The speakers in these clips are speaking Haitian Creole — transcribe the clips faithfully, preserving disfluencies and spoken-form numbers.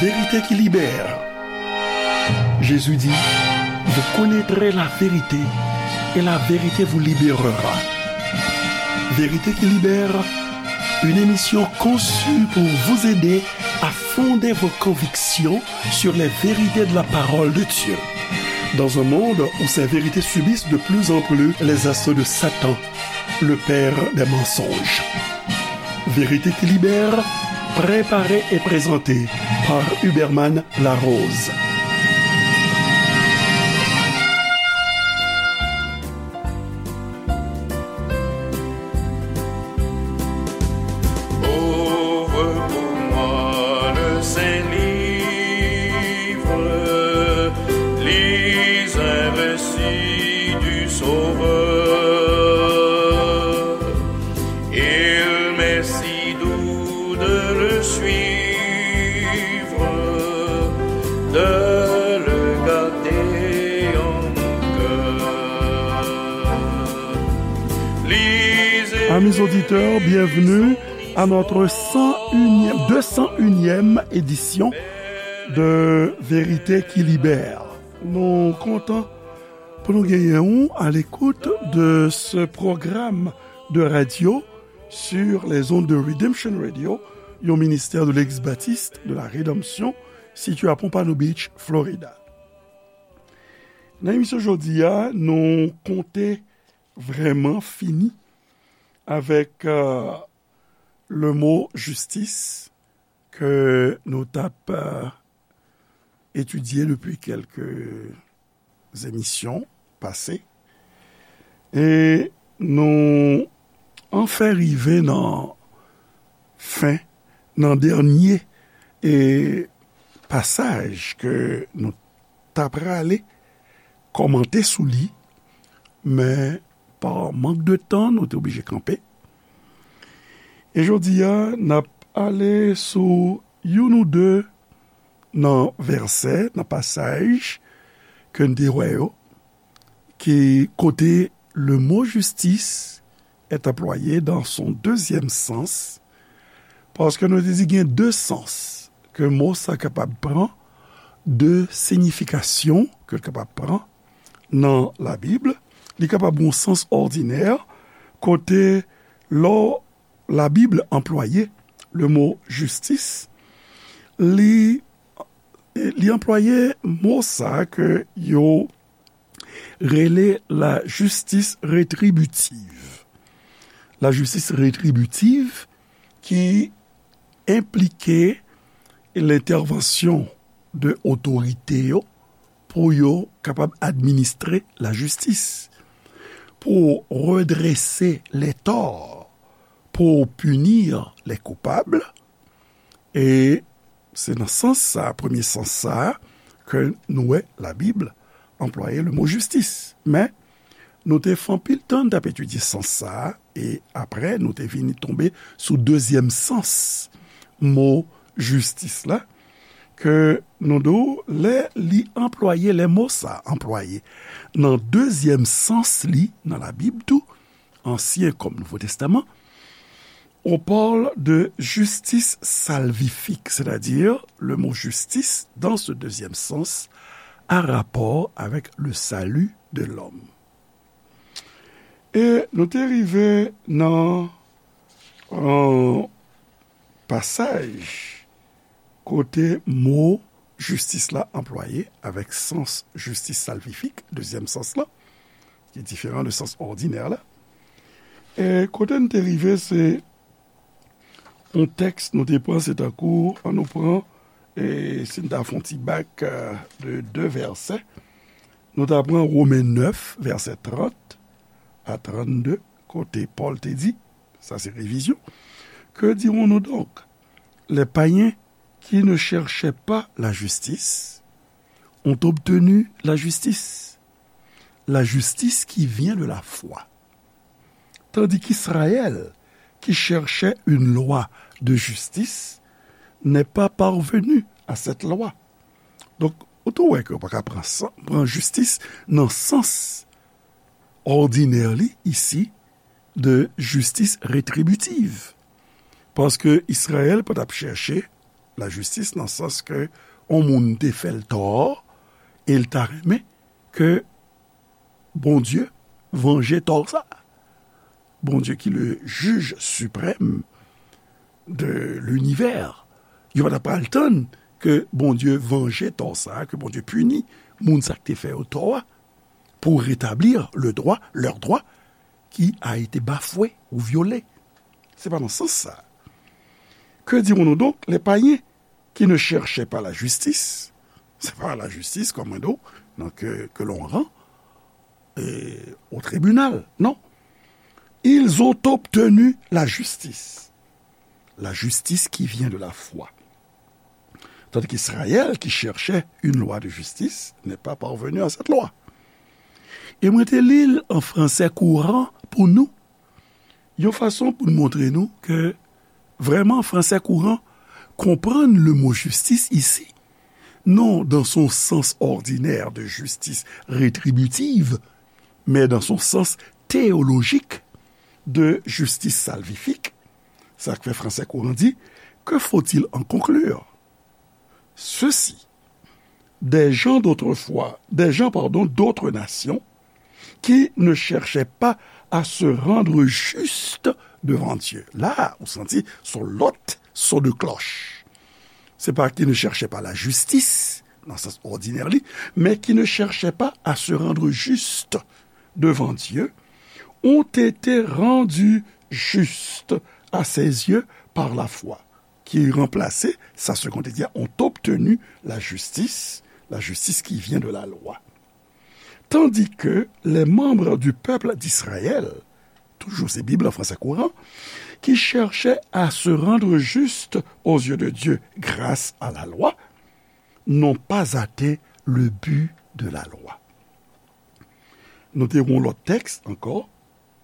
Vérité qui libère. Jésus dit, vous connaîtrez la vérité et la vérité vous libérera. Vérité qui libère, une émission conçue pour vous aider à fonder vos convictions sur les vérités de la parole de Dieu. Dans un monde où ces vérités subissent de plus en plus les assauts de Satan, le père des mensonges. Vérité qui libère, préparée et présentée par Huberman Larose. Ouvre pour moi le Saint-Livre, lis un récit du Sauveur. Il m'est si doux de le suivre, de le garder en mon cœur. Lisez Amis auditeurs, bienvenue à notre cent unième, deux cent unième édition de Vérité qui libère. Nou kontan pou nou genyen w à l'écoute de ce programme de radio sur les ondes de Redemption Radio, yon ministè de l'ex-baptiste de la Rédemption, sitiye à Pompano Beach, Florida. Nan emisyon jodi a, nou konte vrèman fini avèk, euh, le mot justice ke nou t ap, euh, etidye depi kèlke emisyon pase. E nou anfen rive nan fen, nan dènye, e, pasaj ke nou ta prale kòmante sou li, men pa mank de tan, nou te oblije kanpe. E jodi a, n ap ale sou youn ou de nan vèsè, nan pasaj ke n te wè yo, ki kote le mot justice est employé dans son deuxième sens, paske nou te di gen de sans ke mo sa kapab pran, de siyifikasyon ke l kapab pran nan Labib. Li kapab gen yon sans òdinè, kote lè Labib anplwaye le mo jistis, li, li anplwaye mo sa ke yo rele la justice rétributive. La justice rétributive ki enplike lentèvansyon de otorite yo pou yo kapab administre lajistis, pou redrese les torts, pour punir les coupables. E se nan sans sa, premye sans sa, ke nou wè Labib anplwaye le mo jistis. Men, nou te fè anpil tan n t ap etidye sans sa, e apre, nou te vini tonbe sou dezyèm sans mo jistis la, ke nou di w, lè li anplwaye, lè mo sa anplwaye nan dezyèm sans li nan Labib tou, Ansyen kòm Nouvo Testaman, on parle de justice salvifique, c'est-à-dire le mot justice, dans ce deuxième sens, a rapport avec le salut de l'homme. E nou te rive nan, euh, pasaj kote mo jistis la anplwaye avèk sans justice salvifique, dezyèm sans la, ki diferan de sans òdinè la. E kote n te rive, se yon tèks nou te pran, se tankou, an nou pran, e si n ta fè yon ti bak, euh, de de vèsè, nou ta pran Women nèf, vèsè trant a trannde, kote Pòl te di, sa se revizyon, Que dirons-nous donc? Les païens qui ne cherchaient pas la justice ont obtenu la justice, la justice qui vient de la foi. Tandis qu'Israël, qui cherchait une loi de justice, n'est pas parvenu à cette loi. Donk, ou tou wè ke ou pa ka pran san, pran jistis nan sans òdinè li isi de justice rétributive. Paske Izrayèl pa t ap chèche lajistis nan sans ke yon moun te fè l tò, e l ta renmen ke Bondye vanje tò sa. Bondye ki le jij siprèm de linivè. Yo pa ta pral tann ke Bondye vanje tò sa, ke Bondye pini moun sa k te fè yo tò a, pour rétablir le droit, leur droit, qui a été bafoué ou violé. Se pa nan sans sa. Que dirons-nous donc, les païens qui ne cherchaient pas la justice? C'est pas la justice, comme on dit, donc, que, que l'on rend euh, au tribunal. Non. Ils ont obtenu la justice. La justice qui vient de la foi. Tandis qu'Israël, qui cherchait une loi de justice, n'est pas parvenu à cette loi. E mwen te li l an fransè kouran pou nou, yon fason pou n montre nou ke vrèman fransè kouran konprann le mo justice ici, non dans son sens ordinaire de justice rétributive, mais dans son sens théologique de justice salvifique. Sa k fè fransè kouran di, que faut-il en conclure? Ceux-ci, des gens d'autrefois, des gens, pardon, d'autres nations, qui ne cherchaient pas à se rendre justes devant Dieu. La, ou santi, se yon lòt son de klòch. Se pa qui ne cherchaient pas la justice, nan sans òdinè li, mais qui ne cherchaient pas à se rendre justes devant Dieu, ont été rendus justes à ses yeux par la foi. Qui remplaçait, sa seconde, c'est-à-dire ont obtenu la justice, la justice qui vient de la loi. Tandis que les membres du peuple d'Israël, toujours c'est Bible en français courant, qui cherchaient à se rendre justes aux yeux de Dieu grâce à la loi, n'ont pas atteint le but de la loi. Nou te yon lòt tèks ankò,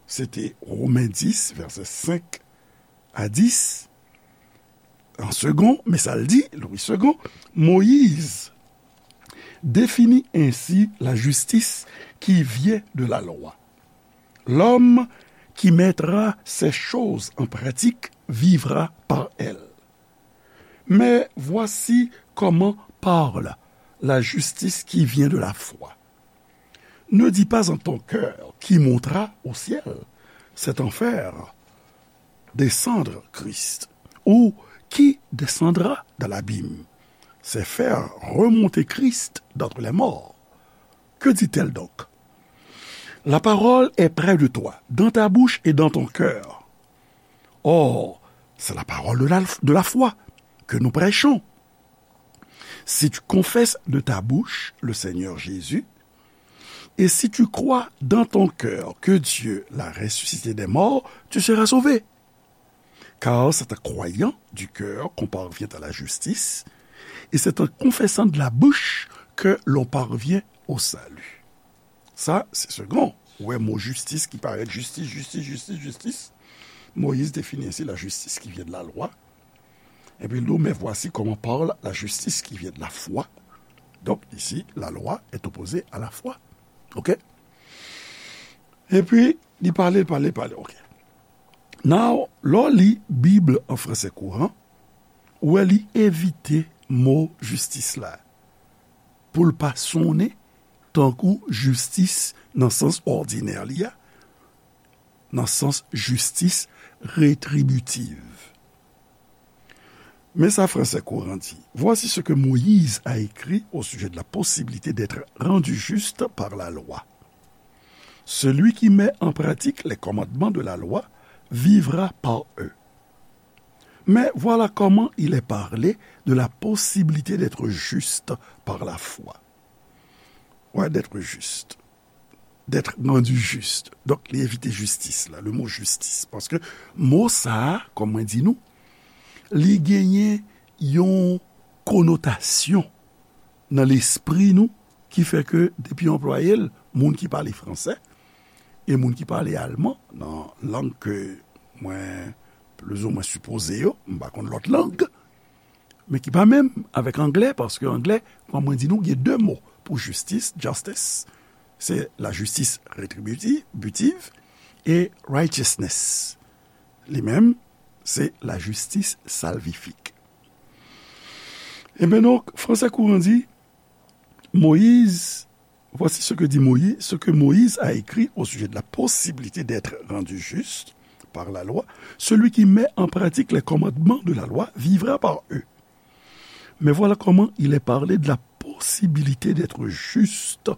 se te Women dis, vèsè senk a dis. An segon, men sa l di, Louis Segond, Moïse définit ainsi la justice qui vient de la loi. L'homme qui mettra ces choses en pratique vivra par elles. Mais voici comment parle la justice qui vient de la foi. Ne dis pas en ton cœur, qui montera au ciel, c'est en faire descendre Christ, ou qui descendra dans l'abîme, c'est faire remonter Christ d'entre les morts. Que dit-elle donc? La parole est près de toi, dans ta bouche et dans ton cœur. Or, c'est la parole de la, de la foi que nous prêchons. Si tu confesses de ta bouche le Seigneur Jésus, et si tu crois dans ton cœur que Dieu l'a ressuscité des morts, tu seras sauvé. Car c'est en croyant du cœur qu'on parvient à la justice, et c'est en confessant de la bouche que l'on parvient au salut. Sa, se segon. Ou wè mo jistis ki parèt, jistis, jistis, jistis, jistis. Moïse définit ainsi la justice qui vient de la loi. Epi l di w, mais voici comment parle la justice qui vient de la foi. Donc, ici, la loi est opposée à la foi. OK? Epi, li pale, pale, pale. OK. Now, lè w li Bib an fransè kouran, ou wè li evite mo jistis la pou l pa sonnen tankou jistis nan sans òdinè li a, nan sans jistis retribitiv. Men sa fransè kouran di, voici ce que Moïse a écrit au sujet de la possibilité d'être rendu juste par la loi. Celui qui met en pratique les commandements de la loi vivra par eux. Mais voilà comment il est parlé de la possibilité d'être juste par la foi. Ouais, d'être juste. D'être rendu juste. Donk, li evite jistis la, le mot justice. Paske mo sa a, kòm mwen di nou, li genyen yon konotasyon nan lespri nou ki fè ke depi yo anplwaye l, moun ki pale fransè e moun ki pale alman, nan lang ke mwen plizoumwen sipoze yo, m pa konn lòt lang, men ki pa menm avèk anglè, paske anglè, kòm mwen di nou, gen de mo pou jistis, justice, se la justice rétributive, butive, e righteousness, li menm, se la justice salvifique. Ebyen donk, fransè kouran di, Moïse, voici ce que dit Moïse, ce que Moïse a écrit au sujet de la possibilité d'être rendu juste par la loi. Celui qui met en pratique les commandements de la loi vivra par eux. Mais voilà comment il est parlé de la possibilité d'être juste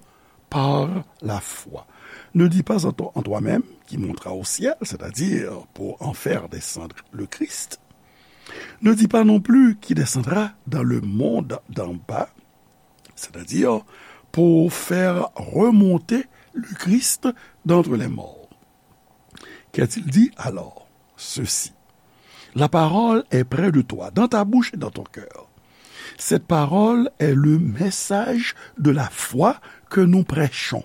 par la foi. Ne dis pas en toi-même, qui montera au ciel, c'est-à-dire pour en faire descendre le Christ. Ne dis pas non plus, qui descendra dans le monde d'en bas, c'est-à-dire pour faire remonter le Christ d'entre les morts. Qu'a-t-il dit alors ? Ceci. La parole est près de toi, dans ta bouche et dans ton cœur. Cette parole est le message de la foi que nous prêchons.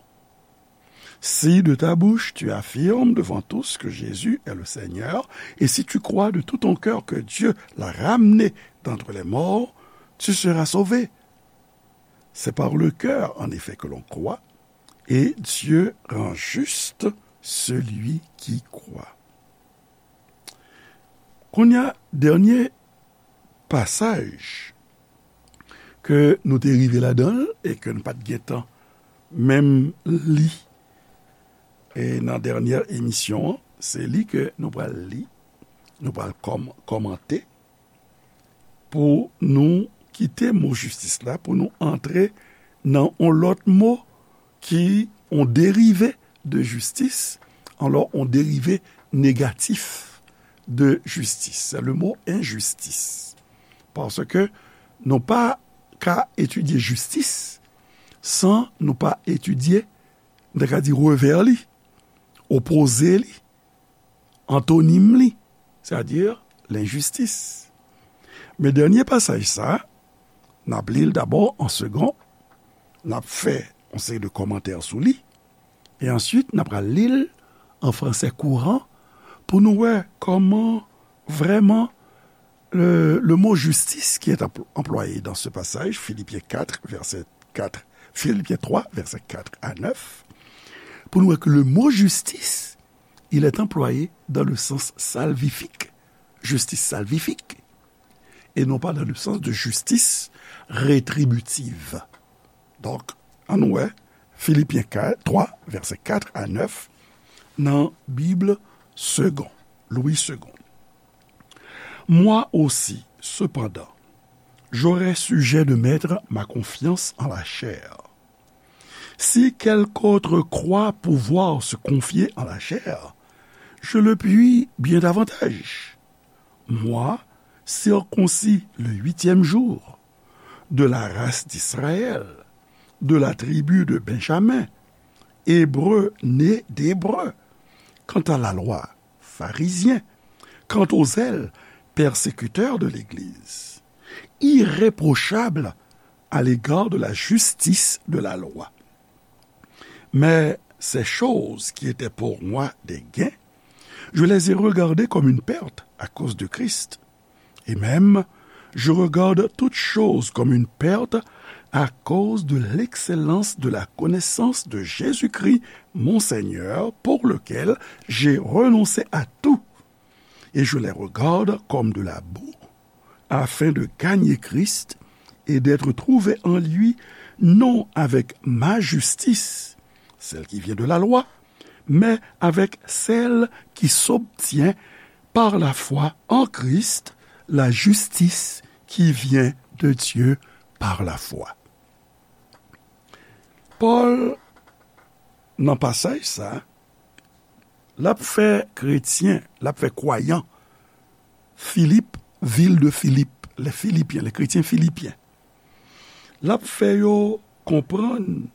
Si de ta bouche tu affirmes devant tous que Jésus est le Seigneur, et si tu crois de tout ton cœur que Dieu l'a ramené d'entre les morts, tu seras sauvé. C'est par le cœur, en effet, que l'on croit, et Dieu rend juste celui qui croit. Kounye a, dènye pasaj ke nou te rive ladan l e ke n pa t gentan menm li e nan dènye emisyon an, se li ke nou pral li, nou pral kòm-, kòmante pou nou kite mo jistis la, pou nou antre nan yon lòt mo ki yon derive de jistis, alò yon derive negatif de jistis. Se le mo enjistis. Paske nou pa ka etidye jistis san nou pa etidye, nou ta ka di revè li, opoze li, antonim li, sètadi lenjistis. Men dènye pasaj sa, n ap li l dabò an segon, n ap fè yon seri de kòmantè sou li, e answit n ap pral li l an fransè kouran pou nou wè kòman vrèman le, le mot justice qui est empl-, employé dans ce passage, Philippiens quatre, verset quatre, Philippiens trois, verset quatre à neuf, pou nou wè ke le mot justice, il est employé dans le sens salvifique, justice salvifique, et non pas dans le sens de justice rétributive. Donk, ann wè Filipyen kat, twa, vèsè kat a nèf, nan Bib Segond, Louis Segond. Moi aussi, cependant, j'aurai sujet de mettre ma confiance en la chair. Si quelque autre croit pouvoir se confier en la chair, je le puis bien davantage. Moi, circoncis le huitième jour, de la race d'Israël, de la tribu de Benjamin, hébreu né d'Hébreu. Quant à la loi, pharisien. Quant au zèle, persécuteur de l'Église. Irréprochable à l'égard de la justice de la loi. Mais ces choses qui étaient pour moi des gains, je les ai regardées comme une perte à cause de Christ. Et même, je regarde toutes choses comme une perte à cause de l'excellence de la connaissance de Jésus-Christ, mon Seigneur, pour lequel j'ai renoncé à tout. Et je les regarde comme de la boue, afin de gagner Christ et d'être trouvé en lui, non avec ma justice, celle qui vient de la loi, mais avec celle qui s'obtient par la foi en Christ, la justice qui vient de Dieu par la foi. Pòl, nan pasaj sa, l ap fè kretyen, l ap fè kwayan Filip, vil de Filip, les Philippiens, les chrétiens philippiens. L ap fè yo konprann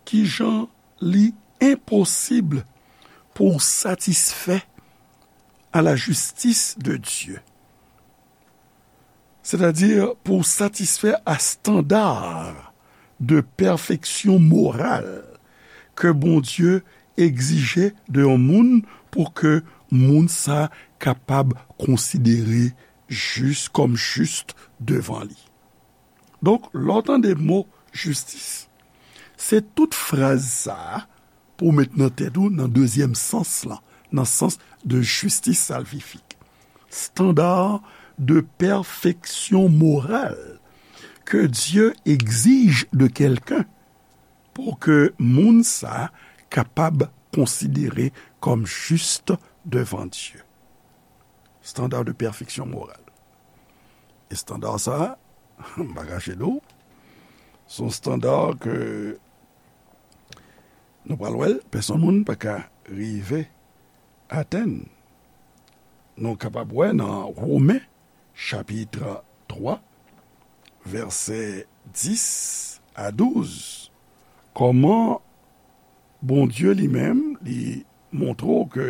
kijan li enposib pou w satisfè à la justice de Dieu. Sètadi pou w satisfè a standard de perfection morale ke Bondye egzije de yon moun pou ke moun sa kapab konsidere jis, kòm jis devan li. Donk, lè w tande mo jistis, se tout fraz sa a pou w met nan tèt ou nan dezyèm sans lan, nan sans de justice salvifique. Standard de perfection morale que Dieu exige de quelqu'un pour que moun sa kapab konsidere kòm jis devan Dye. Standard de perfection morale. E standard sa, m pa kache nou, se yon standard ke nou pral wè l, pèsonn moun pa ka rive atenn. Nou kapab wè nan Women, chapit twa, vèsè dis a douz, kòman Bondye li menm, li montre w ke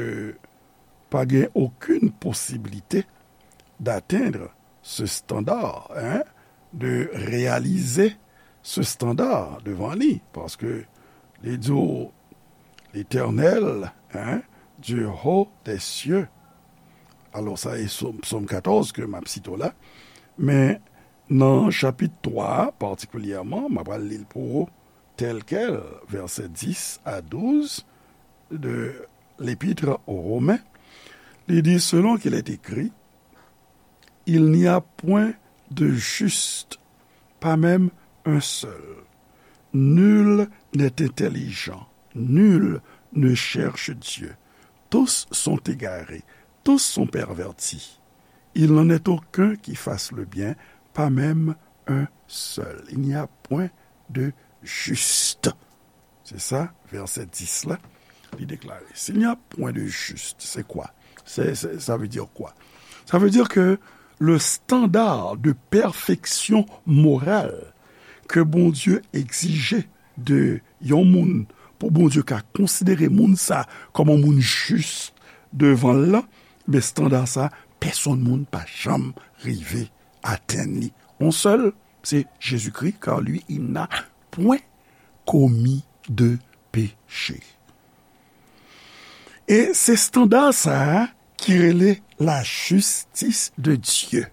pa gen okenn posiblite d'atteindre ce standard, hein, de réaliser ce standard devan li, paske li di w, Letènèl, hein, Dieu haut des cieux. Alò, sa e Sòm, Sòm katòz ke m ap site w la. Men nan chapit twa a, patikilyèman, m ap al li l pou ou, tel quel, vèsè dis a douz de l'Épître aux Romains, li di, selon qu'il est écrit, il n'y a point de juste, pas même un seul. Nul n'est intelligent, nul ne cherche Dieu. Tous sont égarés, tous sont pervertis. Il n'en est aucun qui fasse le bien, pas même un seul. Il n'y a point de juste. Se sa, vèsè dis la, li deklare. S'il n'y a point de juste, c'est quoi? C'est, c'est, ça veut dire quoi? Ça veut dire que le standard de perfection morale que Bondye egzije de yon moun, pou Bondye ka konsidere moun sa kòm yon moun jis devan l la, men estanda sa, pèsonn moun pa janm rive atenn li. Yon sèl, se Jezikri, car lui, il n'a point commis de péché. E se estanda sa a ki rele la justice de Dieu.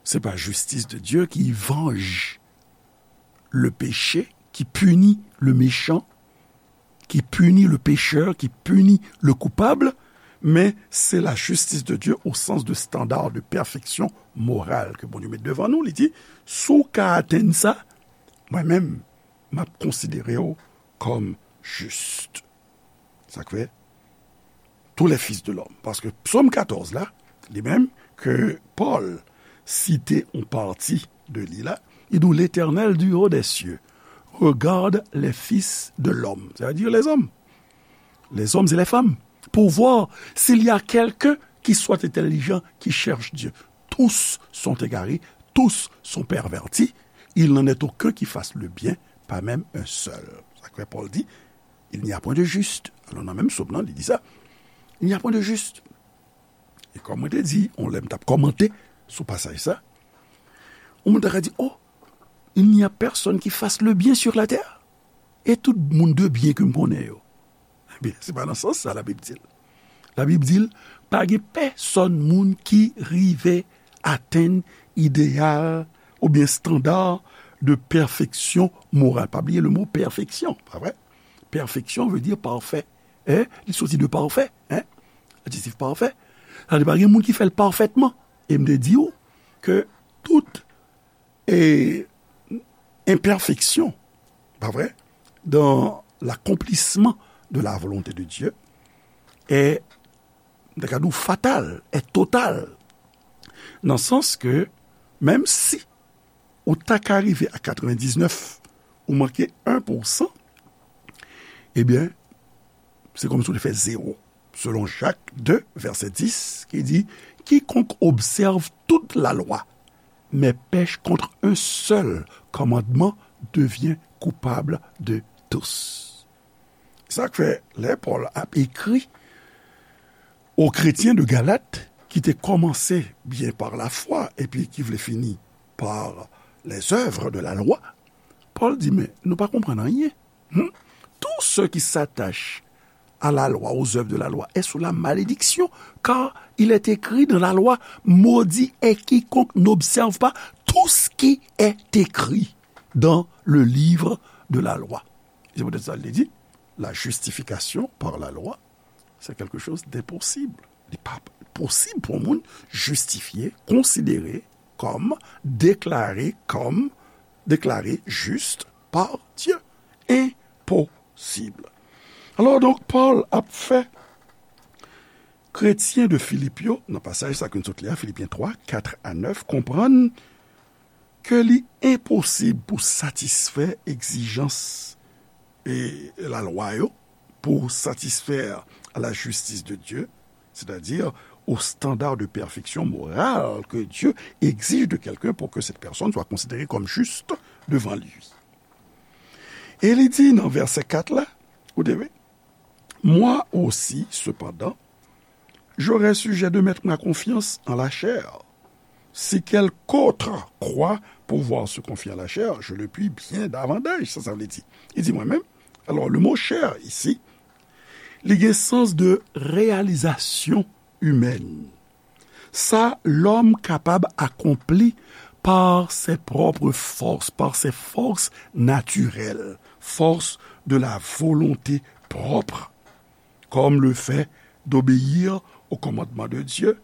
Se pa justice de Dieu ki vanje le péché, qui punit le méchant, qui punit le pécheur, qui punit le coupable, men se la justice de Dieu au sens de standard de perfection morale ke Bondye met devan nou. Li di, si w ka atenn sa, mwen menm, m ap konsidere w kòm jis. Sa k fè, tous les fils de l'homme. Paske Sòm katòz la, li menm, ke Pòl site yon pati de li la, li di, L'Éternel du haut des cieux regarde les fils de l'homme, c'est-à-dire les hommes, les hommes et les femmes, pour voir s'il y a quelqu'un qui soit intelligent, qui cherche Dieu. Tous sont égarés, tous sont pervertis, il n'en est aucun qui fasse le bien, pas même un seul. Sa k fè Pòl di, il n'y a point de juste. Alò, nan menm Sòm nan, li di sa. Il n'y a point de juste. E kòm mwen te di, yon lè m t ap kòmante sou pasaj sa, yon moun ta ka di, oh, il n'y a personne qui fasse le bien sur la terre. E tout moun de byen ke m konnen yo. Ebyen, se pa nan sans sa Labib di l. Labib di l, pa gen pèsonn moun ki rive atenn ideyal oubyen estanda de pèfeksyon moral. Pa bliye le mo pèfeksyon, pa vre? Pèfeksyon vle di pafè. Hein? Li soti de pafè, hein? Adjektif pafè. Sa vle di pa gen moun ki fè l pafètman. E m te di w ke tout e, enpèfeksyon, pa vre? Dans l'accomplissement de la volonté de Dieu est, m ta ka di w, fatal, est total. Nan sans ke, menm si ou ta ka rive a katrevendiznèf, ou manke en pousan, ebyen, se kòmsi w te fè zewo. Selon Jak de, vèsè dis, ki di, quiconque observe toute la loi, mais pèche contre un seul commandement devient coupable de tous. Sa k fè, lè Pòl ap ekri aux chrétiens de Galat, ki te kòmanse byen par la foi, epi ki vle fini par les œuvres de la loi, Pòl di, men nou pa konprann anyen. Hmm? Tout ce qui s'attache à la loi, aux œuvres de la loi, est sous la malédiction, car il est écrit dans la loi, maudit est quiconque n'observe pas tout ce qui est écrit dans le livre de la loi. Se poutèt sa, li di, la justification par la loi, c'est quelque chose d'impossible. Li pa posib pou yon moun jistifye, konsidere kòm, deklare kòm, deklare jis pa Dye. Enposib. Alò, donk, Pòl ap fè kretyen de Filip yo, nan pasaj sa ke n sot li a, Filipyen twa, kat a nèf, konprann ke li enposib pou satisfè egzijans e lalwa yo, pour satisfaire à la justice de Dieu, c'est-à-dire au standard de perfection morale que Dieu exige de quelqu'un pour que cette personne soit considérée comme juste devant lui. E li di nan vèsè kat la, ou te vle, moi aussi, cependant, j'aurais sujet de mettre ma confiance en la chair. Si quelque autre croit pouvoir se confier à la chair, je le puis bien davantage, sa sa vle di. Li di mwen menm. Alò, le mo chè isi, li gen sans de réalisation humaine. Sa lòm kapab akonpli par ses propres forces, par ses forces naturelles, force de la volonté propre, comme le fait d'obéir au commandement de Dieu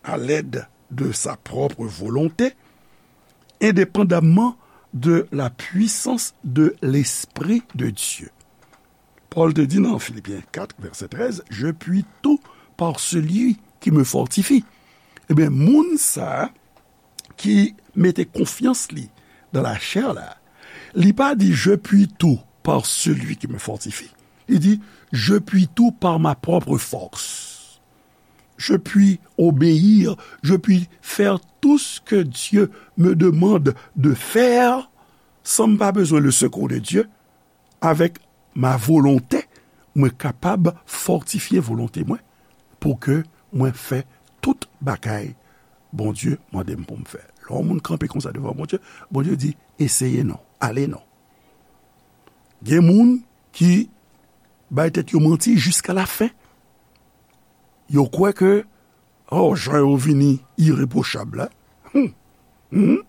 à l'aide de sa propre volonté, indépendamment de la puissance de l'Esprit de Dieu. Pòl te di nan Filipyen kat, vèsè trèz, je puis tout par celui qui me fortifie. Ebyen, moun sa a ki mete konfyans li nan lachè la, li pa di je puis tout par celui qui me fortifie. Li di je puis tout par ma propre force. Je puis obéir, je puis faire tout ce que Dieu me demande de faire sans m pa bezwen le secours de Dieu. Avèk ma volonte, mwen kapab fòtifye volonte mwen pou ke mwen fè tout bagay Bondye mande m pou m fè. Lè yon moun kanpe konsa devan Bondye, Bondye di, eseye non, ale non. Gen moun ki bay tèt yo manti jiska lafen. Yo kwè ke, oh, jan yo vini irepwochab la. Hmm. Hmm.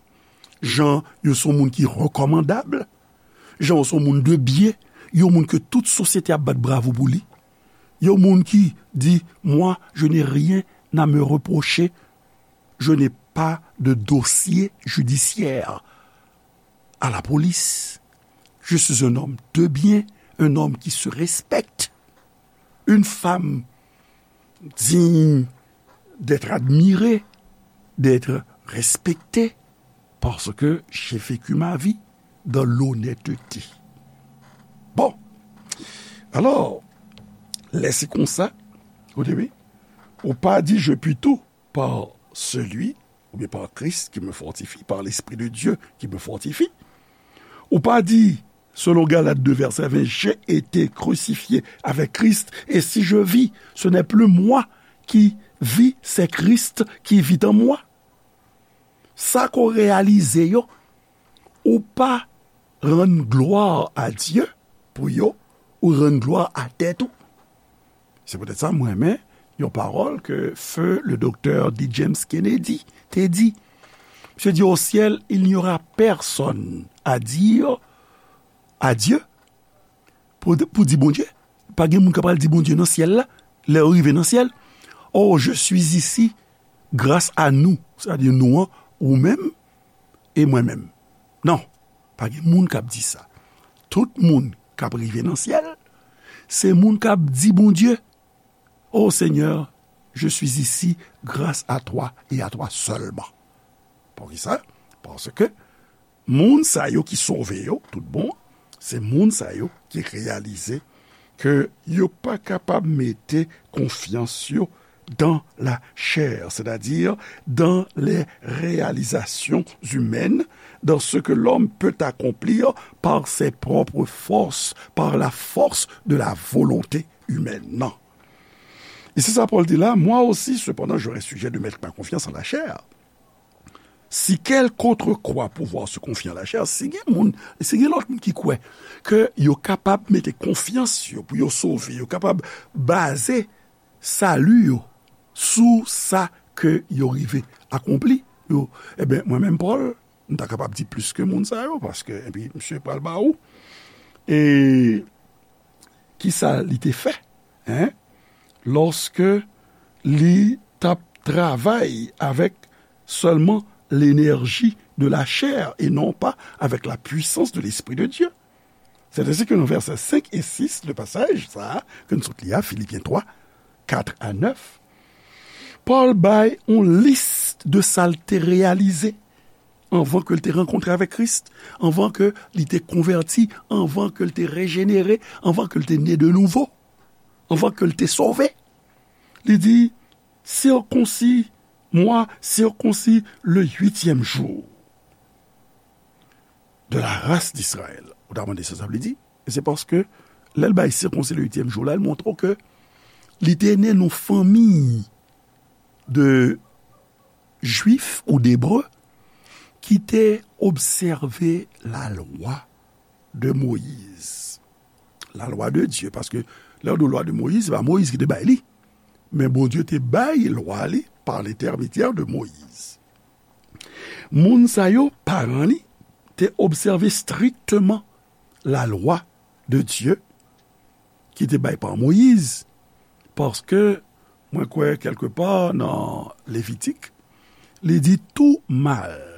Jan yo se yon moun ki rekòmandab. Jan yo se yon moun de byen. Yon moun ke tout sosyete ap bat bravo pou li. Yon moun ki di, moi, je n'ai rien à me reprocher. Je n'ai pas de dossier judiciaire à la police. Je suis un homme de bien, un homme qui se respecte, une femme digne d'être admirée, d'être respectée, parce que j'ai vécu ma vie dans l'honnêteté. Bon, alò, lè se konsa, ou te wi, ou pa di je puis tout, par celui, oubyen par Christ qui me fortifie, par l'Esprit de Dieu qui me fortifie. Ou pa di, selon Galat de vèsè ven, j'ai été crucifié avec Christ, et si je vis, ce n'est plus moi qui vis, c'est Christ qui vit en moi. Sa ke w reyalize yo, ou pa rann glwa a Dye pou yo, ou rann glwa a tèt ou. Se poutèt sa mwen renmen yon pawòl ke feu le docteur D. James Kennedy te di. Misye di, au ciel, il n'y aura personne à dire à Dieu, pou, pou di Bondye. Pa gen moun k ap pral di Bondye nan syèl la, lè yo rive nan syèl, oh, je suis ici grâce à nous, sètadi nou an, ou menm e mwen menm. Non, pa gen moun k ap di sa. Tout moun k ap rive nan syèl, se moun k ap di Bondye, oh Seigneur, je suis ici grâce à toi et à toi seulement. Poukisa? Paske moun sa yo ki sove yo, tout bon, se moun sa yo ki reyalize ke yo pa kapab mete konfyans yo dans la chair, c'est-à-dire dans les réalisations humaines, dans ce que l'homme peut accomplir par ses propres forces, par la force de la volonté humaine. Non. E se sa Pòl di la, moi aussi, cependant, j'aurai sujet de mettre ma confiance en la chair. Si quelque autre croit pouvoir se confier en la chair, si gen moun, si gen lòt moun ki kwè ke yo kapab mete konfyans yo pou yo sove, yo kapab baze sali yo sou sa ke yo rive akonpli, yo, ebyen, mwen menm Pòl, m ta kapab di plis ke moun sa yo, paske, epi, misye pral ba ou. E kisa li te fè, en? Lòske li t ap travay avèk sèlman l'énergie de la chair et non pas avec la puissance de l'Esprit de Dieu. C'est ainsi que dans versets cinq et six de passage, sa, ke nou sot li a, Filipyen twa, kat a nèf, Pòl bay yon lis de sa l te reyalize anvan ke l te rankontre avèk Kris, anvan ke li te konvèti, anvan ke l te rejenere, anvan ke l te ne de nouvo, anvan ke l te sove. Li di, circoncis, moi, circoncis le huitième jour de la race d'Israël. Ou ta mande sa sa vle di? E se paske lè l bay circoncis le huitième jour la, l montre w ke li te ne nan fanmi de Jwif ou d'Ebre ki te obsève la lwa de Moyiz. La lwa de Dye, paske lè yo di lwa de Moyiz, se pa Moyiz ki te bay li. Men Bondye te bay lwa li pa lentèmedyè de Moyiz. Moun sa yo, paran li, te obsève strikteman la lwa de Dye ki te bay pa Moyiz, paske mwen kwè kèlkepa nan Levitik, li di tout mâle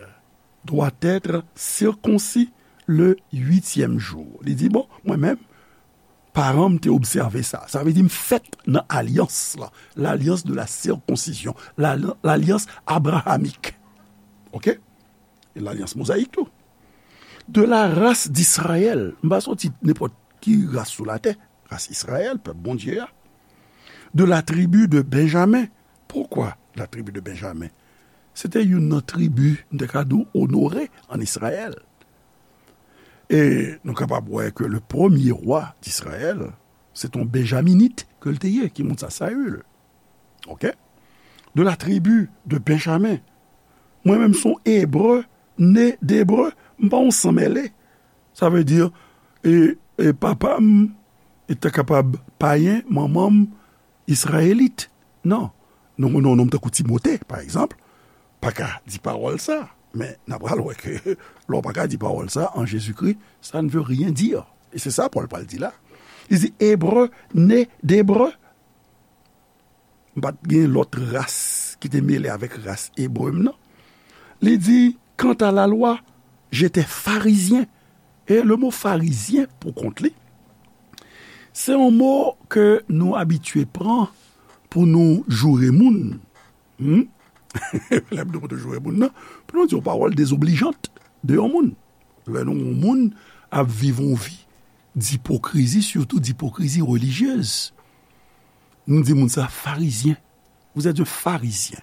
doit être circoncis le huitième jour. Li di, bon, mwen menm, paran m te obsève sa. Sa vle di m fèt nan alyans la, l'alliance de la circoncision, la, l'alliance abrahamique. Oke? E lalyans mozayik tou. De la race d'Israël. M pa soti nenpòt ki ras sou latè. Ras Izrayèl, pèp Bondye a. De la tribu de Benjamin. Poukwa la tribu de Benjamin? Se te youn nan tribi, m te ka di w, onore ann Izrayèl. E nou kapab wè ke le premye wa d'Izrayèl, se te yon Benjaminit ke l te ye, ki moun sa, Saül. Oke? De la tribu de Benjamin. Mwen menm se yon Ebre, ne d'Ebre, m pa yon sanmèle. Sa vle di, e, e papa m, e ta kapab payen, manman m, Izrayelit. Non. Nou konnen yon nonm tankou Timote, pa egzanp, pa ka di pawòl sa. Men, n a pral wè ke lè w pa ka di pawòl sa, en Jésus-Christ, ça ne veut rien dire. E se sa Pòl pral di la. Li di, Ebre, ne d'Ebre. M pa t gen lòt ras ki te mele avèk ras ebre m nan. Li di, quant à la loi, j'étais pharisien. E le mo farizyen, pou kont li, se yon mo ke nou abitye pran pou nou joure moun. Hmm? Lè m di pou nou joure moun nan, pou nou di yon pawòl dezoblijant de yon moun. Lè nou, yon moun ap viv yon vi dipokrizi, sitou dipokrizi relijyez, nou di moun sa farizyen. Vous êtes un pharisien.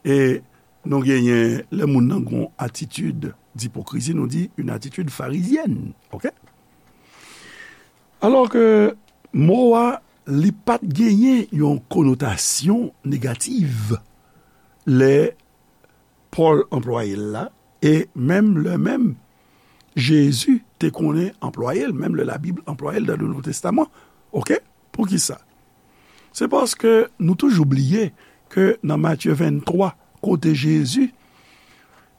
E nou genyen, lè moun nan gon atitid dipokrizi, nou di une attitude pharisienne. Oke? Alò ke mo a, li pa t genyen yon konotasyon negativ lè Pòl anplwaye l la, e menm lè menm, Jezi te konnen anplwaye l, menm lè Labib anplwaye l dan le Nouvo Testaman. Oke? Poukisa? Se paske nou toujou bliye ke nan Matye venntwa, kote Jezi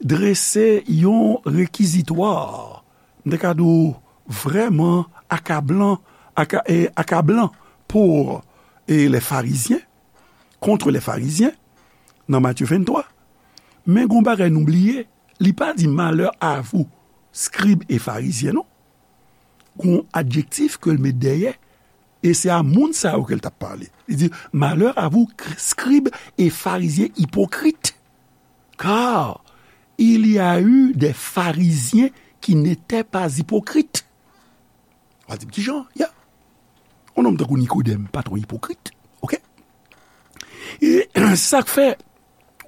drese yon rekizitwa, m te ka di w vrèman akablan, aka-, e, akablan pou, e, les Pharisiens, contre les Pharisiens, nan Matye venntwa. Men gon bagay nou bliye, li pa di malheur à vous, scribes et pharisiens, non. Gon adjektif ke l met dèyè, e se a moun sa yo ke l t ap pale. Li di, malheur à vous, scribes et pharisiens hypocrites, car il y a eu des pharisiens qui n'étaient pas hypocrites. W a di m, kijan? Ya. Yon nonm tankou Nikodèm pa t yon ipokrit. Oke? E sa k fè,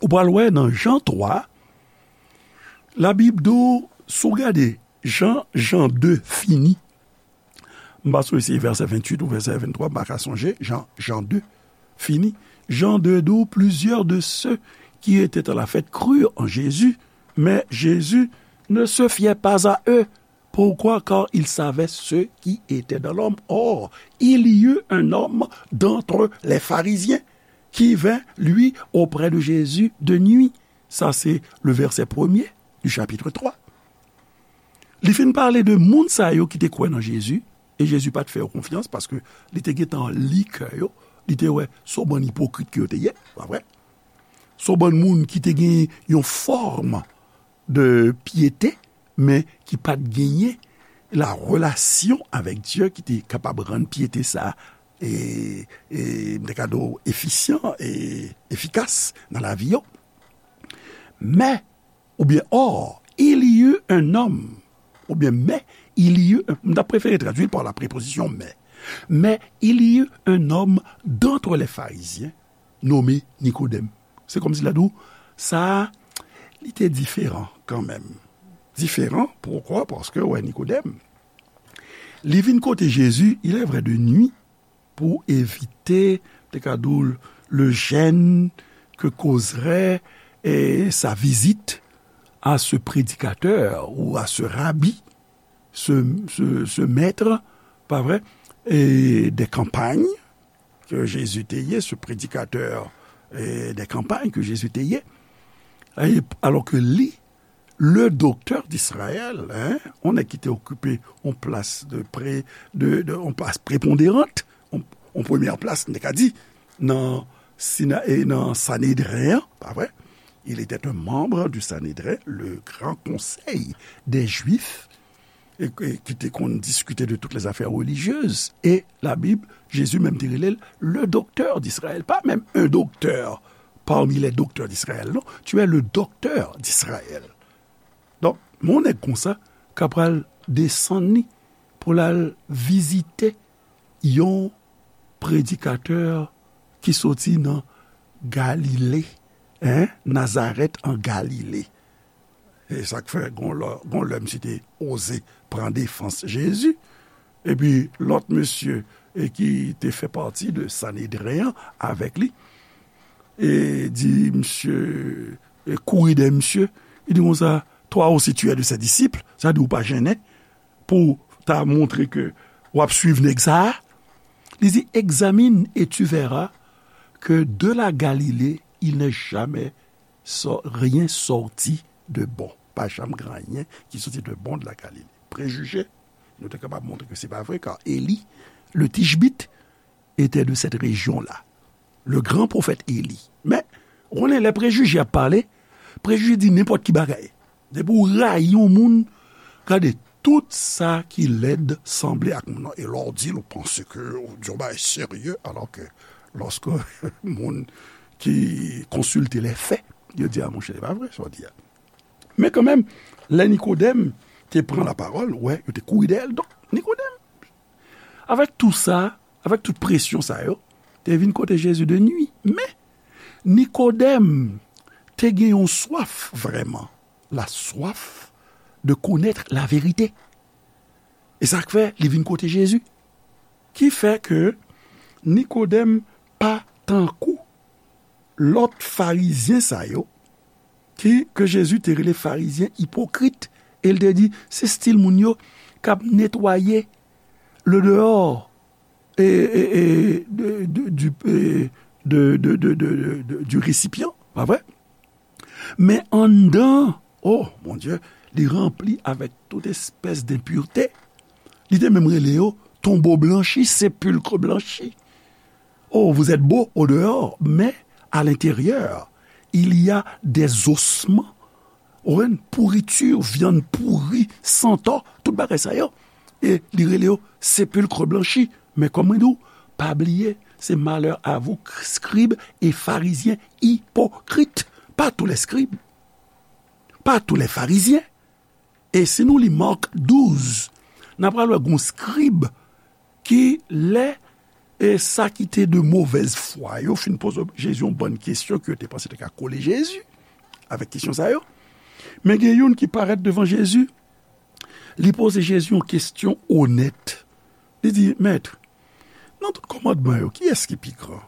ou pral wè nan Jan twa, Labib di w, si w gade Jan, Jan de fini, m pa sonje si se vèsè venntuit ou vèsè venntwa, m pa ka sonje, Jan, Jan de fini. Jan de di w, plusieurs de ceux qui étaient à la fête crurent en Jésus, mais Jésus ne se fiait pas à eux. Pourquoi? Car il savait ce qui était dans l'homme. Or, il y eut un homme d'entre les pharisiens qui vint, lui, auprès de Jésus de nuit. Sa se le vèsè premye du chapitre twa. Li fin pale de moun sa yo ki te kwè nan Jezi, e Jezi pa t fè yo konfyans paske li te gentan li kè yo, li te wè se yon bann ipokrit ke yo te ye, pa vre? Se yon bann moun ki te gen yon fòm de pyete, men ki pa t genyen la relasyon avèk Dye ki te kapab rann pyete sa, e, e, m te ka di w, efisyan e efikas nan lavi yo. Men, oubyen, or, il y eut un homme, oubyen, mais, il y eut, m ta prefere tradui l pa la preposition mais. Mais il y eut un homme d'entre les pharisiens nommé Nicodème. Se kòmsi l ap di w, sa a, li te diferan kanmenm. Diferan, poukwa? Paske, wè, Nikodèm, li vin kote Jezi, il est vrai, de nuit, pou evite, te ka di w, le gêne que causerait, eh, sa visite à ce prédicateur ou à ce rabbi, ce, ce, ce maître, pa vre, e de kanpay ke Jezi te ye, ce prédicateur, eh, de kanpay ke Jezi te ye. E, alò ke li, le doktè d'Izrayèl, hein, yon nèg ki te okipe yon plas de pre-, de, de, yon plas preponderant, yon, yon premyè plas, n te ka di, nan Sina-, e nan Sanedren an, pa vre? Il était un membre du Sanhédrin, le grand conseil des Juifs, e, e ki te konn diskite de toutes les affaires religieuses. E la Bib, Jezi menm te rele l le docteur d'Israël. Pas même un docteur parmi les docteurs d'Israël, non. Tu es le docteur d'Israël. Donk, yon nèg konsa ka pral desann li pou l al vizite yon predikatè ki soti nan Galile, hein, Nazarèt an Galile. E sa k fè, gon lè, gon lè misye te oze pran defans Jezi. Epi lòt mesye, e ki te fè pati de Sanedren an avèk li, e di misye, e kouri dèyè misye, li di konsa, toi aussi tu es de ses disciples, sa di ou pa jennen pou ta montre ke w ap swiv nèg sa a. Li di, examine et tu verras que de la Galilée, il n'est jamais sor-, rien sorti de bon. Pa janm gen anyen ki soti de bon de la Galilée. Prejije, nou te kapab montre ke se pa vre, kar Eli, le Tishbit, était de cette région-là. Le grand prophète Élie. Men, ou konnen lè prejije ap pale, prejije di nenpòt ki bagay. Depi w rayi yon moun, gade, tout sa ki lèd sanble ak moun nan. E lè w di l, ou panse ke w di yon bagay serye, alò ke lòske moun ki konsilte lè fè, yo di, a monchè, se pa vre sa w di a. Men kanmenm, lè Nikodèm te pran lapawòl, wè, yo te kouri dèyè l. Donk, Nikodèm, avèk tou sa, avèk tout presyon sa yo, te vin kote Jezi de nwi. Men, Nikodèm te gen yon swaf vrèman, la soif de connaître la vérité. E sa k fè li vin kote Jezi. Ki fè ke Nikodèm pa tankou lòt farizyen sa yo, ki, ke Jezi te rele farizyen ipokrit, e l te di, se stil moun yo k ap netwaye le dehors, e, e, e, de, de, du, e, de, de, du récipient, pa vre? Men anndan, oh, mon Dieu, li ranpli avèk tout espès denpirte. Li te menm rele yo tonbo blanchi, sépulcre blanchi. Oh, vous êtes beau au dehors, mais à l'intérieur, il y a des ossements. Ou konprann? Pourriture, vyann pouri, santò, tout bagay sa yo. E li rele yo sépulcre blanchi. Men kòm mwen di w, pa bliye, se malheur à vous, scribes et pharisiens hypocrites. Pas tous les scribes, pas tous les pharisiens. E si nou li Mak douz, n a pral wè gon skrib ki lè, e sa ki te de movèz fwa yo fin poze Jezi yon bann kesyon ke yo te panse te ka kole Jezi avèk kesyon sa yo. Men gen youn ki parèt devan Jezi, li poze Jezi yon kesyon onèt. Li di, Mèt, nan tout kòmandman yo, kiyès ki pi gran?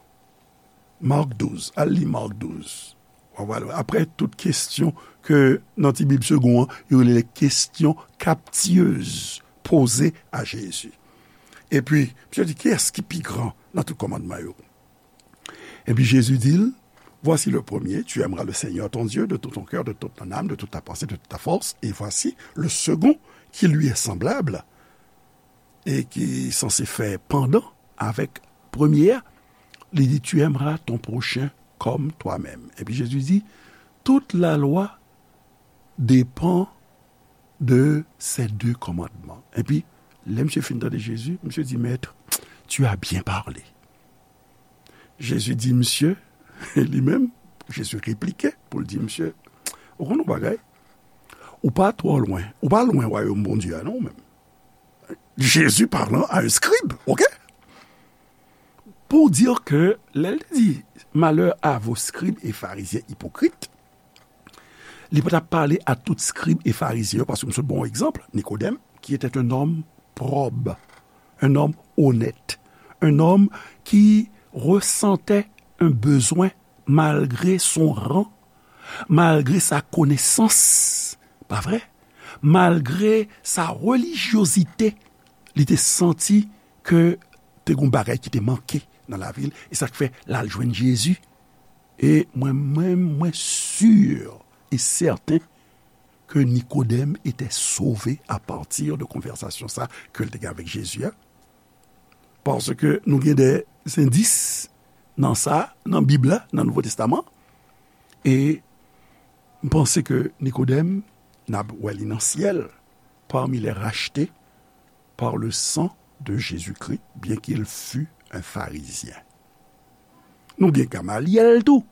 Mak douz, al li Mak douz. W a wè, apre tout kesyon ke nan ti Bib segon an, yo rele kesyon kaptiyez poze a Jezi. Epi, misye di, kiyès ki pi gran nan tout kòmandman yo? Epi Jezi di l, voici le premier, tu aimeras le Seigneur ton Dieu de tout ton cœur, de toute ton âme, de toute ta pensée, de toute ta force. Et voici le second qui lui est semblable et qui est censé faire pendant avec premier a, li di, tu aimeras ton prochain comme toi-même. Epi Jezi di, toute la loi dépend de ces deux commandements. Epi, lè misye fin tande Jezi, misye di, Maître, tu as bien parlé. Jezi di misye, li menm, Jezi replike pou l di misye, ou konn yon bagay, ou pa twò lwen, ou pa lwen wayòm Bondye a non, ou menm. Jésus parlant à un scribe, ok? Pour dire que, lè l di, malheur à vos scribes et pharisiens hypocrites, li pa t ap pale a tout scribe e farizyen yo, paske m sot ba w egzanp, Nikodèm, qui était un homme probe, un homme honnête, un homme qui ressentait un besoin malgré son rang, malgré sa connaissance, pa vre? Malgré sa religiosité, li te santi ke te gon bagay ki te manke nan lavi l, e sa k fè l al jwenn Jezi. E mwen menm, mwen si e sèten ke Nikodèm etè sove a pati de konvèsasyon sa ke l te gen avèk Jezi a. Paske nou gen de endis nan sa, nan Bib la, nan Nouvo Testaman. E m panse ke Nikodèm, n ap wè li nan syèl, parmi les rachetés par le sang de Jésus-Christ, bien qu'il fût un pharisien. Nou gen Gamalyèl tou,